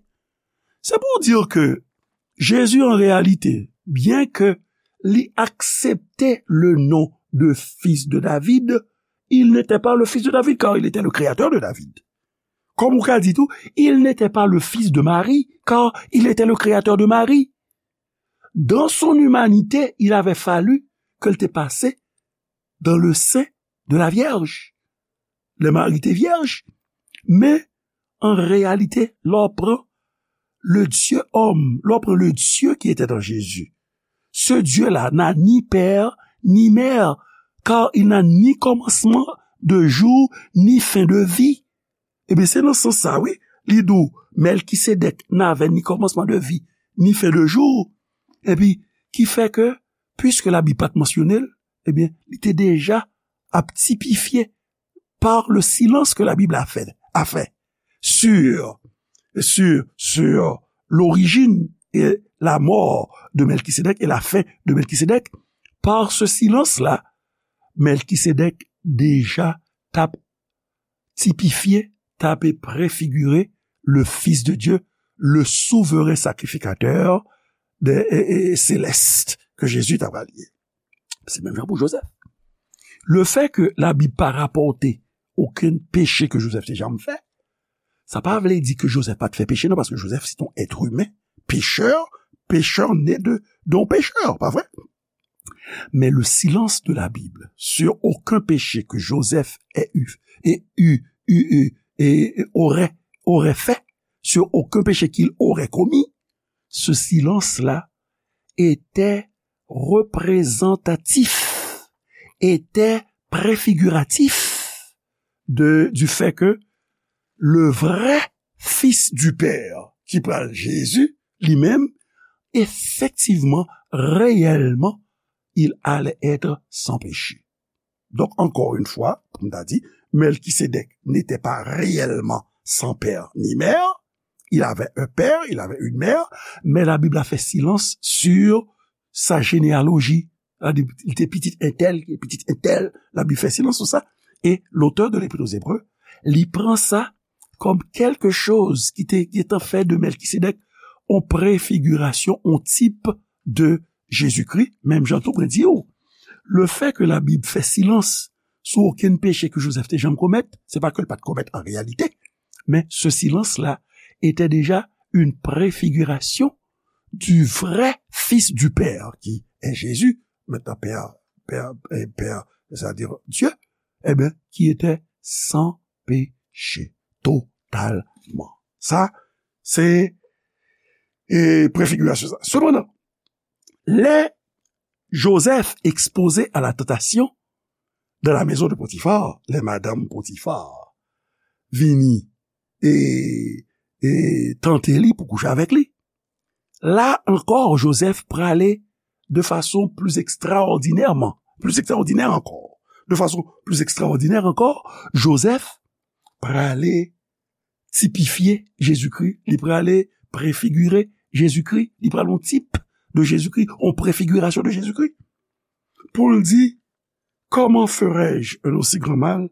C'est pour dire que Jésus, en réalité, bien que li aksepte le nom de fils de David, il n'était pas le fils de David, car il était le créateur de David. Kòm ou ka di tou, il n'était pas le fils de Marie, car il était le créateur de Marie. Dans son humanité, il avait fallu ke l te pase dans le sein de la Vierge. Lè Mari te vyèj. Men, an reyalite, lè w pran le Dieu homme, lè w pran le Dieu qui était en Jésus, ce Dieu-là n'a ni père ni mère, car il n'a ni commencement de jour ni fin de vie. Ebyen, se nan sans sa, wi, li di w, Mèlkisedèk n'avait ni commencement de vie, ni fin de jour. Epi, ki fè ke, puiske Labib pa t mansyone l, ebyen, li te deja ap tipifye par le silence que la Bible a fait, a fait sur, sur, sur l'origine et la mort de Melchisédek et la fin de Melchisédek, par ce silence-là, Melchisédek deja t ap tipifye, t ap prefigire le Fils de Dieu, le souverain sacrificateur de, e, e, céleste que Jésus t ap ye. Se menm jan pou Joseph. Le fait que la Bible pa rapòte okenn peche ke Joseph te janm fè, sa pa vle di ke Joseph pa t fè peche, non, paske Joseph se yon èt imen, pécheur, pécheur né de, d'un pécheur, pa vre? Mais le silence de la Bible sur aucun péché que Joseph ait eu, et eu, eu, eu, et aurait, aurait fait, sur aucun péché qu'il aurait commis, ce silence-là était représentatif, était préfiguratif de, du fait que le vrai Fils du Père, ki pral Jésus, li menm, effectivement, réellement, il allait être sans péché. Donc, encore une fois, comme on a dit, Melchisédek n'était pas réellement sans père ni mère. Il avait un père, il avait une mère, mais la Bible a fait silence sur sa généalogie. Li te pitit entèl, li te pitit entèl, la Bible fè silans sou sa. E lotè de Lepit o Zebre, li pran sa kòm kèlke choz ki te, ki te fè de Melchisédek yon prefigirasyon, yon tip de Jezikri, menm jan tou mwen di w, le fait que la Bible fè silans sou okenn peche ke Joseph te janm komèt, se pa ke l pa t komèt an reyalite, men ce silence-là était déjà une préfiguration du vrai Fils du Père, qui est Jésus, maintenant Père, Père, eh, Père, c'est-à-dire Dieu, eh bien, qui était sans péché, totalement. Sa, se, e, prefigirasyon sa. Sepandan, lè Joseph ekspoze a la tantasyon dans la maison de Potiphar, lè madanm Potifar vini e, e tante li pou kouche avèk li, la ankò, Joseph prale de fason pli ekstraòdinèman, pli ekstraòdinè ankò, de fason pli ekstraòdinè ankò, Joseph prale tipifye Jezikri, li prale prefigire Jezikri, li prale yon tip de Jezikri, yon prefigirasyon de Jezikri. Pou l di, comment ferai-je un aussi grand mal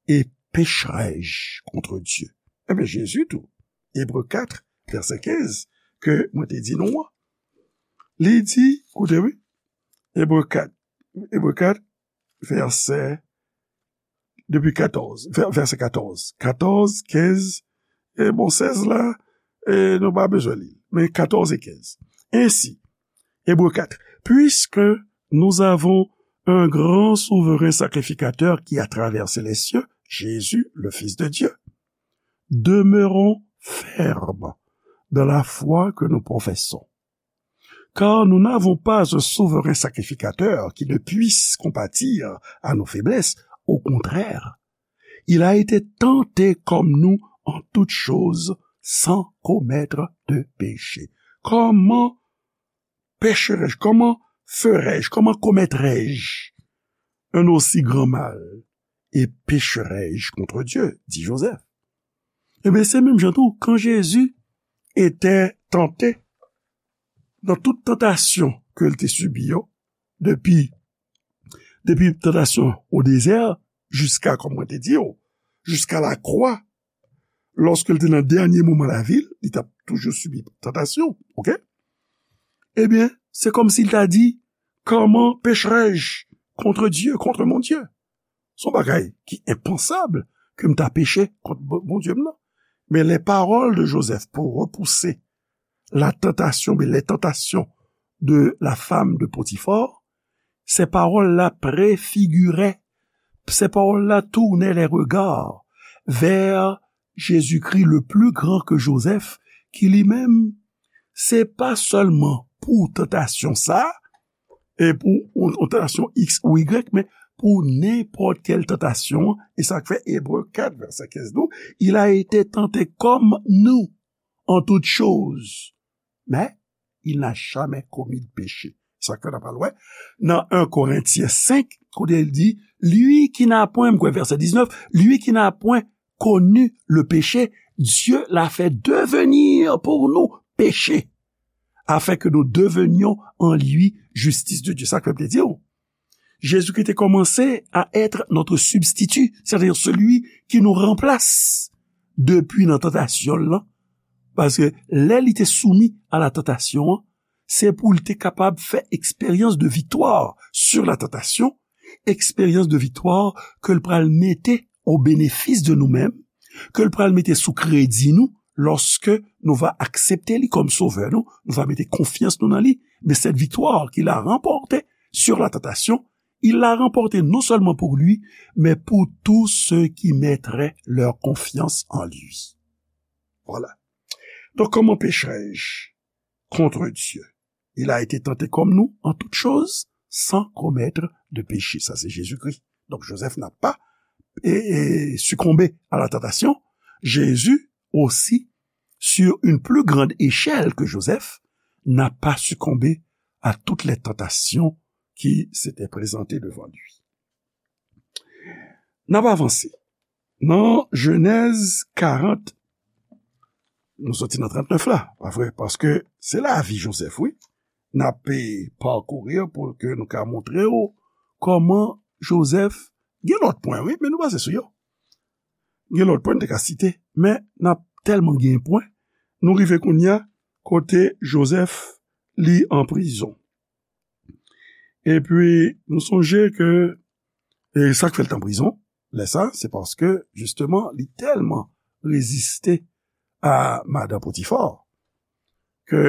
et pécherai-je contre Dieu? Ebyen, Jezi tou, Ebre kat, vèsè kenz, ke mwen te di nou an, li di, koute wi, Ebre kat, Ebre kat, vèsè, depi katòz, vè-, vèsè katòz. Katòz, kenz, e bon, sèz la, e nou pa bezwen li. Men katòz e kenz. Ainsi, Hébreux quatre, puisque nous avons un grand souverain sacrificateur qui a traversé les cieux, Jésus, le Fils de Dieu, demeurons fermes dans la foi que nous professons. Car nous n'avons pas un souverain sacrificateur qui ne puisse compatir à nos faiblesses. Au contraire, il a été tenté comme nous en toutes choses, sans commettre de péché. Comment pécherai-je, comment ferai-je, comment commettrai-je un aussi grand mal et pécherai-je contre Dieu, dit Joseph. Ebyen, se menm jan tou, quand Jésus était tenté dans toute tentation ke l te sibi yo, depi, depi tantasyon o dezè, jiska, kòm mwen te di yo, jiska lakwa, lòske l te nan dènye moman lavi l, li t ap toujou sibi tantasyon, oke? Ebyen, se kòmsi l ta di, comment pécherai-je contre Dieu, contre mon Dieu? Se yon bagay ki enpansab ke m ta peche kont Bon-, Bondye m nan. Men les paroles de Joseph pour repousser la tentation, mais les tentations de la femme de Potiphar, ces paroles-là préfiguraient, ces paroles-là tournaient les regards vers Jésus-Christ, le plus grand que Joseph, ki li menm, se pa sèlman pou tantasyon sa, e pou yon, yon tantasyon X ou Y, men pou nenpòt kèl tantasyon, e sa k fè Ebre kat, vèsè kenz nou, il a été tenté comme nous en toutes choses, mais il n'a jamais commis de péché. Sa k fè n ap pral wè nan un Corinthiens cinq, kote l di, lui qui n'a point, m kwè vèsè diznèf, lui qui n'a point connu le péché, Dieu l'a fait devenir pour nous péché, afin que nous devenions en lui justice de Dieu. Sa k fè m te di w. Jésus-Christ te kòmanse à être notre substitut, c'est-à-dire celui qui nous remplace depuis nan tantasyon l lan. Paske lè li te soumi a la tantasyon an, se pou l te kapab fè eksperyans de viktwa sur la tantasyon, eksperyans de viktwa ke l pral mete o benefis de nou menm, ke l pral mete sou kredi nou, lòske nou va aksepte li kòm sovè nou, nou va mete konfyans nou nan li. Mais cette victoire qu'il a remportée sur la tentation, il l'a remportée non seulement pour lui, mais pour tous ceux qui mettraient leur confiance en lui. Voilà. Donc, comment pécherai-je contre Dieu? Il a été tenté comme nous en toutes choses, sans commettre de péché. Ça, c'est Jésus-Christ. Donc, Joseph n'a pas et, et succombé à la tentation. Jésus aussi, sur une plus grande échelle que Joseph, n'a pas succombé à toutes les tentations qui s'étaient présentées devant lui. N ap avanse. Nan Jenèz karant, nou soti nan trannèf la, pa vre? Paske se lavi Joseph, wi. N ap, eh, pakouri pou ke nou ka montre w kòman Joseph, gen lòt pwen, wi, men nou pase sou yo. Gen lòt pwen n te ka site, men n ap tèlman gen pwen, nou rive kounye a kote Joseph li an prizon. Epi, nou sonje ke, e sa k fè l t an prizon, lè sa, se paske, jisteman, li tèlman reziste a madan Potifar, ke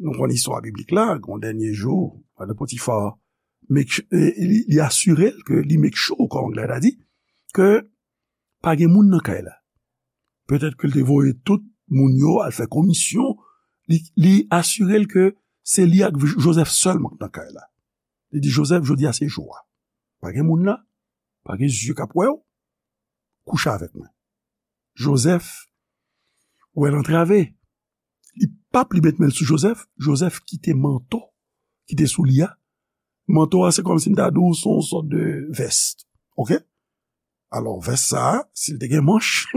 nou konn istwa biblik la, gon dènye jou, madan Potifar, make su-, e, li, li asire l ke li make sure, kòm anglè ta di, ke pa gen moun nan kay la. Petèt ke l te voye tout moun yo al fè komisyon, li, li asire l ke se li ak Joseph sèlman k nan kay la. Li di, "Joseph, jodi a se jou a. Pa gen moun la, pa gen zye k ap wè w, kouche avèk mwen." Joseph, wè l antrave. Li p ap li met men l sou Joseph. Joseph kite manto ki te sou li a. Manto a, se kòmsi m ta di w, se yon sòt de vès. Oke? Alò, vès sa a, si l te gen manch,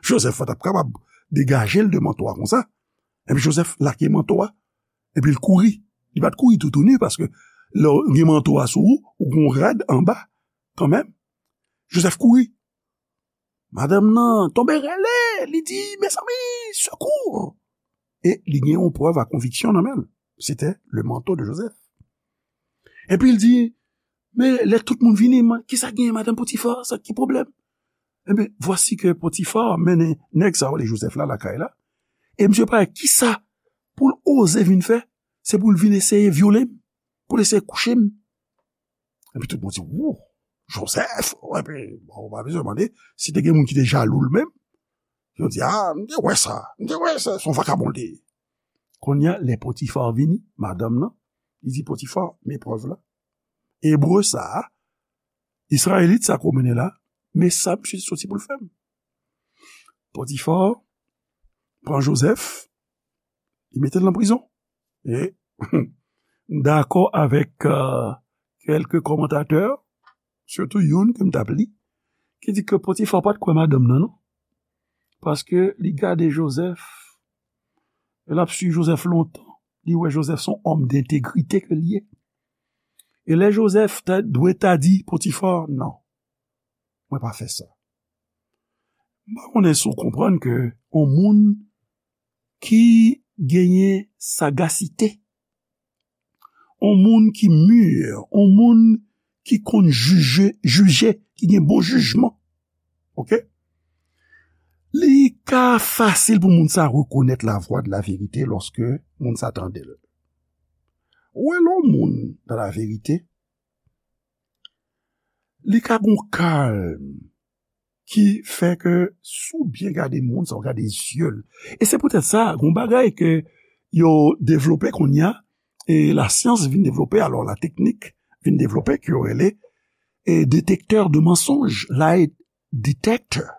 Joseph pa t ap kapab degaje l de manto a konsa. Epi Joseph lage manto a, epi l kouri. Li pa t kouri toutouni, paske lè w gen manto a sou ou, ou gen yon rad anba, kanmenm. Joseph kouri. Madanm nan tonbe rele, li di, "Mezanmi, sekou!" E li gen yon prèv a konviksyon nan men l. C'était le manteau de Joseph. Epi l di, "Men lè tout moun vini, man, kisa gen, madanm Potifar, sa ki pwoblèm?" Ebyen, vwasi ke Potifar mennen nèg sa yo, le Joseph la, lakay la. E misye pa wè kisa pou l oze vin fè, se pou l vin eseye vyole m, pou l eseye kouche m. Epi tout moun di, "Wou, Joseph!" Epi, bon, ou pa bezwen mande, si te gen moun ki te jalou l menm, yo di, "A, m te wè sa, m te wè sa, se yon vakabon l te ye." Kounye a, lè Potifar vini, madanm nan, li di, "Potifar, men prèv la. Ebre sa a, Izrayelit sa ke w mennen la, men sa misye soti pou l fè m." Potifar pran Joseph, li mete l nan prizon. E m dakò avèk, euh, kèlke kòmantatè, sitou youn ke m t ap li, ki di ke Potifar pa t kwè madanm nan, non. Paske li gade Joseph, e l ap swiv Joseph lontan, li wè Joseph se yon òm dentegrite ke l ye. E lè Joseph ta, dwe ta di Potifar, "Non, mwen pa fè sa." M pa konnen si w konprann ke yon moun ki genyen sagasite, yon moun ki mi, yon moun ki konn jije, jije, ki gen bon jijman, oke? Li ka fasil pou moun sa rekonèt la voix de la vérité lòske moun sa tande l. Ou wè lè yon moun dans la vérité, li ka gon kalm ki fè ke si w byen gade moun sa, w gade zye l. E se poutèt sa, gon bagay ke yo devlope kounye a, e lasyans vin devlope, alò la teknik vin devlope, ke yo rele, e detektè de mansonj, lie detector.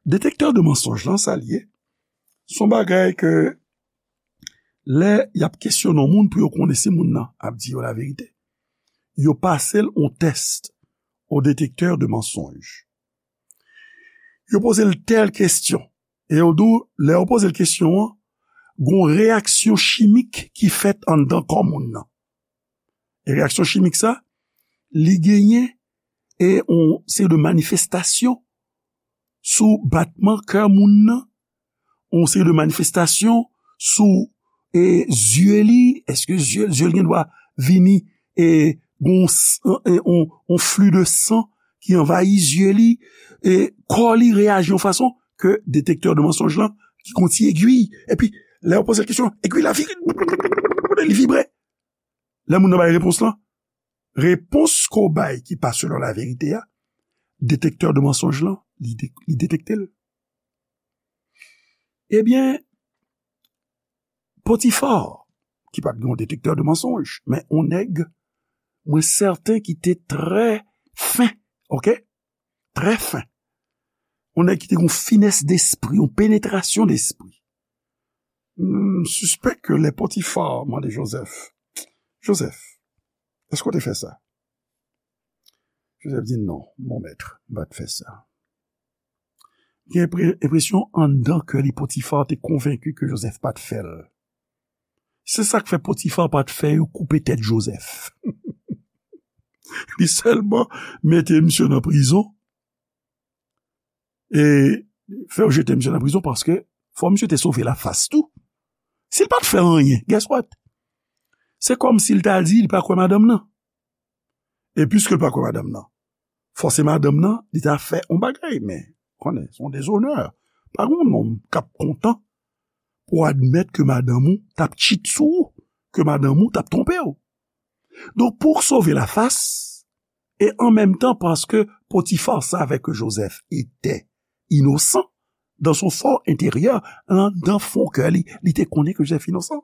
Detektè de mansonj lan, sa l ye, se yon bagay ke lè y ap kesyone yon moun pou yo konnen si moun nan ap di yo laverite, yo pase l yon tès o detektè de mansonj. Yo poze l tèl kesyon, e yo di w, lè yo poze l kesyon an, Gon reyaksyon chimik ki fèt anndan kò moun nan. E reyaksyon chimik sa, li genyen e on seri de manifestasyon sou batman kè moun nan, on seri de manifestasyon sou e zye li, èske zye, zye l gen dwa vini e gon s- e on, on fli de san ki anvayi zye li, e kò li reyaji yon fason ke detektè de mansonj lan ki gon ti egwi, epi lè yo poze l kesyon, egwi la vire, li vibre. Lè moun nan bay repons lan, repons ke w bay ki pa selon laverite a, detektè de mansonj lan, li, de, li detekte l. Ebyen, Potifa, ki pa t gen yon detektè de mansonj, men on nèg, mwen sèten ki te trè fen, oke? Trè fen. On nèg ki te gen yon finès despri, yon penetrasyon despri. M sispèk ke lè Potifa mande Jozèf, Jozèf, èske w te fè sa? Jozèf di, non, mon maître, m pa t fè sa. Gen enpresyon anndan kè li Potifa te konvenki ke Jozèf pa t fè l. Se sa k fè Potifa pa t fè yo koupe tèt Jozèf. Li sèlman mete misye nan prizon e fè yo jete misye nan prizon paske fò misye te sove lafas tou. Si l pa t fè anyen, guess what? Se kòmsi l ta di li pa kwè madanm nan. E piske l pa kwè madanm nan, fòse madanm nan, li ta fè yon bagay, men konnen, se yon dezonè. Pa gen yon nonm k ap kontan pou admèt ke madanm ou t ap cheat sou ou, ke madanm ou t ap twonpe w. Donk, pou w sove lafas, e an menm tan, paske Potifa savait que Joseph était innocent, dans son fort intérieur, anndan fon kè li, li te konnen ke Jozèf inosan.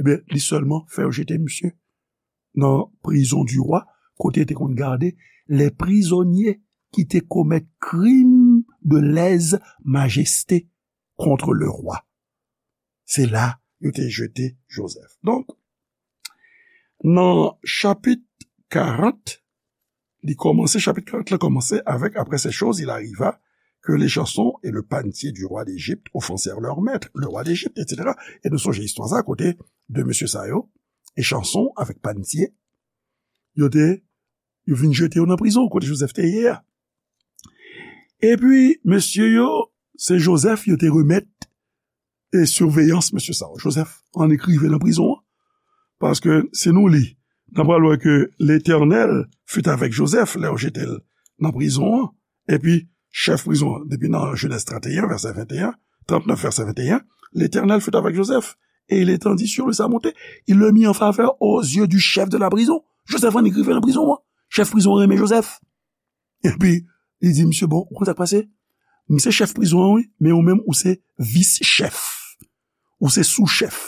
Ebyen, li sèlman fè yo jete misye nan prison du roi, kote te konn gade les prisonniers ki te komèt krim de lèse majeste contre le roi. Se la yo te jete Jozèf. Donk, nan chapit karant, li kòmanse, chapit karant la kòmanse avèk, après ces choses, il arriva que l'échanson et le panetier du roi d'Égypte offensèrent leur maître, le roi d'Égypte, et cetera. E nou sonje istwa sa kote de mesye sa yo, Echanson avèk Panetye, yo te, yo vin jete yo nan prizon kote Jozèf te ye a. Epi, mesye yo, se Jozèf yo te remèt e siveyans mesye sa yo. Jozèf annik rive nan prizon an. Paske si nou li, n a pral wè ke Letènèl fut avèk Jozèf lè yo jete l nan prizon an. Epi, chèf prizon an, depi nan Jenèz trannteyen, vèsè venteyen, trannèf, vèsè venteyen, L'Éternel fut avec Joseph, et il étendit sur lui sa bonté. Il le mit en faveur aux yeux du chef de la prison. Jozèf annik rive nan prizon an. Chèf prizon an renmen Jozèf. Epi, li di misye, bon, ou konn sa k pase? M se chèf prizon an, wi, men ou menm, ou se vis chèf. Ou se sou chèf.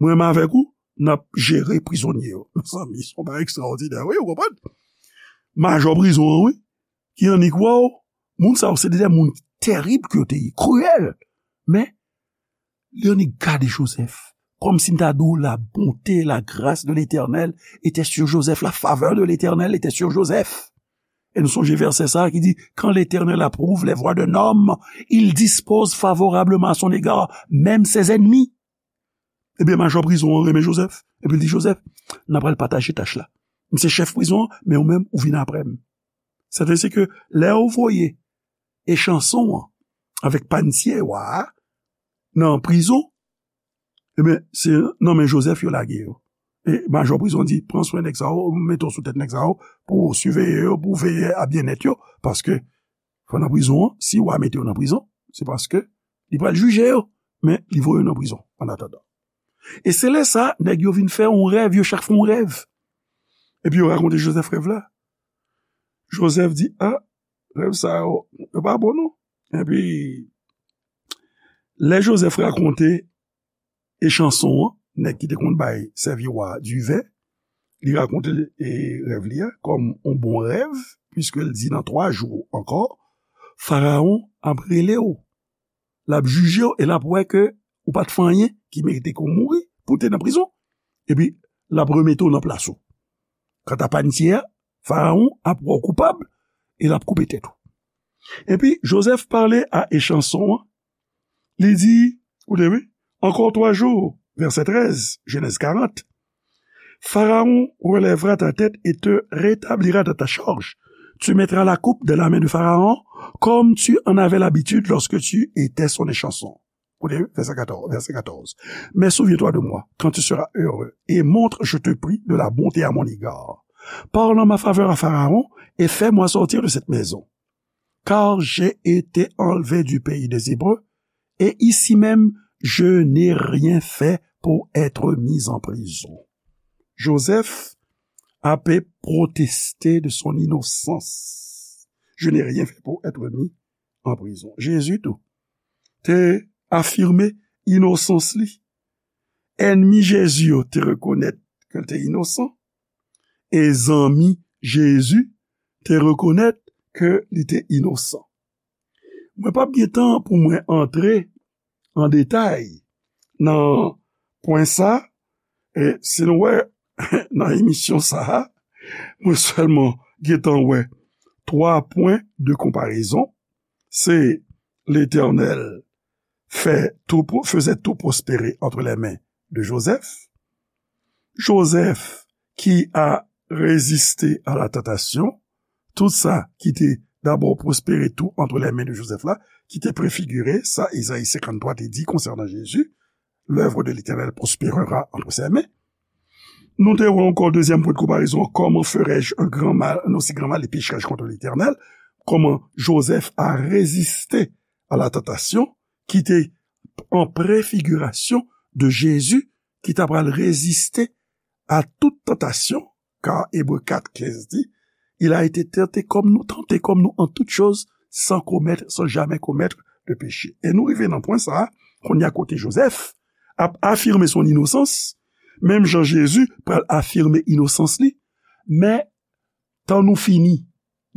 Mwen menm avèk ou, n ap jere prizonye yo. Mezanmi, se yon bagay ekstraòdinè, wi, ou konprann? Majò prizon an, wi, ki annik wè w, moun sa yo se de moun terib ke yo te ye, kriyèl. Men, li annik gade Jozèf. Kòmsi m ta di w, la bonté, la grâce de l'Éternel était sur Joseph, la faveur de l'Éternel était sur Joseph. E nou sonje vèsè sa a ki di, quand l'Éternel approuve les voies d'un homme, il dispose favorablement à son égard, même ses ennemis. Ebyen, majò prizon an renmen Jozèf. Epi l di Jozèf, n a pral pataje tach la. M se chèf prizon an, men ou menm, ou vin apre m. Sètadi ke lè yo voye Echanson an avèk Panetye wa a nan prizon, ebyen, se nan men Jozèf yo lage yo. E majò prizon di, pran swen nèg sa yo, mete w sou tèt nèg sa yo, pou w siveye yo, pou w veye a byennèt yo, paske fò nan prizon an, si wa mete yo nan prizon, se paske li pral jije yo, men li voye yo nan prizon, annatandan. E se lè sa, nèg yo vin fè yon rèv, yo chak fè yon rèv. Epi yo rakonte Jozèf rèv la. Jozèf di, a, rèv sa yo, yo pa bon non. Epi, lè Jozèf rakonte Echanson an, nèg ki te konn bay sèvi wa a diven, li rakonte, e, rèv li a kòm yon bon rèv, piske l di nan twa jou ankò, Farawon ap rele w, l ap jije w e l ap wè ke ou pa t fè anyen ki merite ke w mouri, pou w te nan prizon. Epi, l ap remete w nan plas ou. Kanta Panetye a, Farawon ap wè w koupab e l ap koupe tèt ou. Epi, Jozèf pale a Echanson an, li di, koute wi, Encore trois jours, verset treize, Genèse quarante, Pharaon relèvera ta tête et te rétablira dans ta charge. Tu mettras la coupe dans la main de Pharaon, comme tu en avais l'habitude lorsque tu étais son échanson. Écoutez, verset quatorze, verset quatorze. Mais souviens-toi de moi quand tu seras heureux, et montre, je te prie, de la bonté à mon égard. Parle en ma faveur à Pharaon et fais-moi sortir de cette maison. Car j'ai été enlevé du pays des Hébreux, et ici même je n'ai rien fait pour être mis en prison. Joseph ap proteste de son inosans. Je n'ai rien fait pour être mis en prison. Jezi tou te afime inosans li. Ènmi Jezi yo te rekonèt ke l te inosan, e zanmi Jezi te rekonèt ke li te inosan. Mwen p ap gen tan pou mwen antre an detay nan pwen sa, e si nou wè nan emisyon sa a, mwen sèlman gen tan wè twa pwen de konparezon. Se Letènèl fè tou, faisait tout prospérer entre les mains de Joseph. Joseph qui a résisté à la tentation, tout sa ki te dabò pwospere tou entre les mains de Joseph la, ki te prefigire sa Ezayi senkanntwa te di konsènan Jezi, l'œuvre de l'Éternel prospérera entre ses mains. Nou te wè ankò dezyèm pwen de konparezon, comment ferais-je un grand mal, un aussi grand mal, et pécherais-je contre l'Éternel? Kòman Joseph a reziste a la tantasyon ki te an prefigirasyon de Jezi ki ta pral reziste a tout tantasyon, car Hébreux quatre quinze dit, il a été tenté comme nous, tenté comme nous en toutes choses, sans commettre, sans jamais commettre de péché. E nou rive nan pwen sa a, kounye a kote Joseph ap afime son inosans, menm jan Jezi pral afime inosans li, men tan nou fini,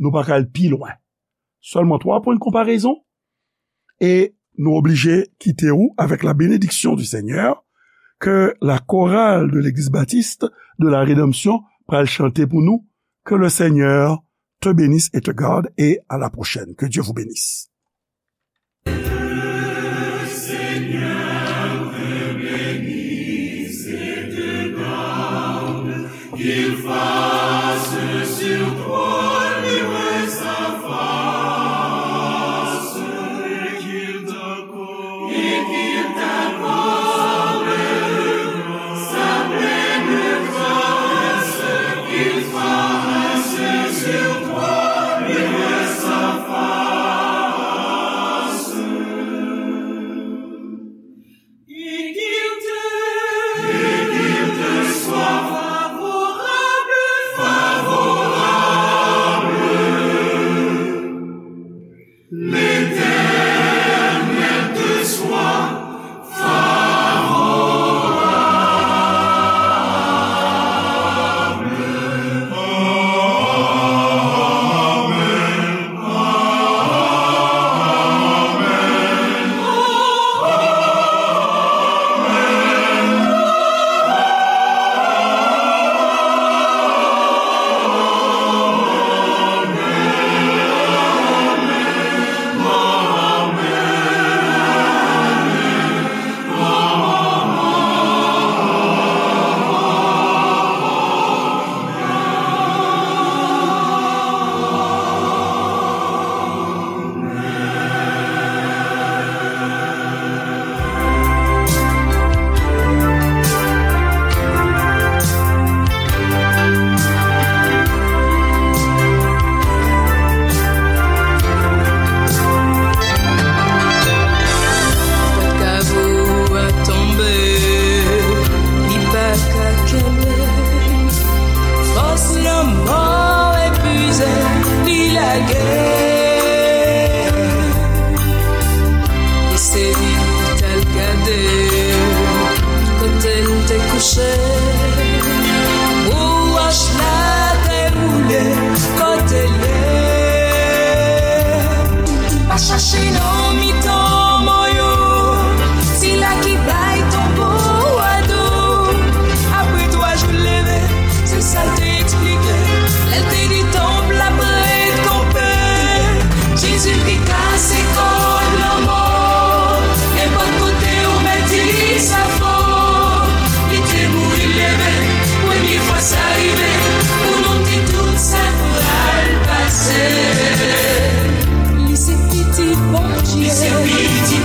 nou pa ka al pi lwen. Sèlman twa pwen de konparezon, e nou oblije kite ou avec la bénédiction du Seigneur, que la chorale de l'Église baptiste de la rédemption pral chante pou nou. Que le Seigneur te bénisse et te garde, et à la prochaine. Que Dieu vous bénisse. Qu'il fasse sur toi luire sa face, et qu'il t'accorde, et qu'il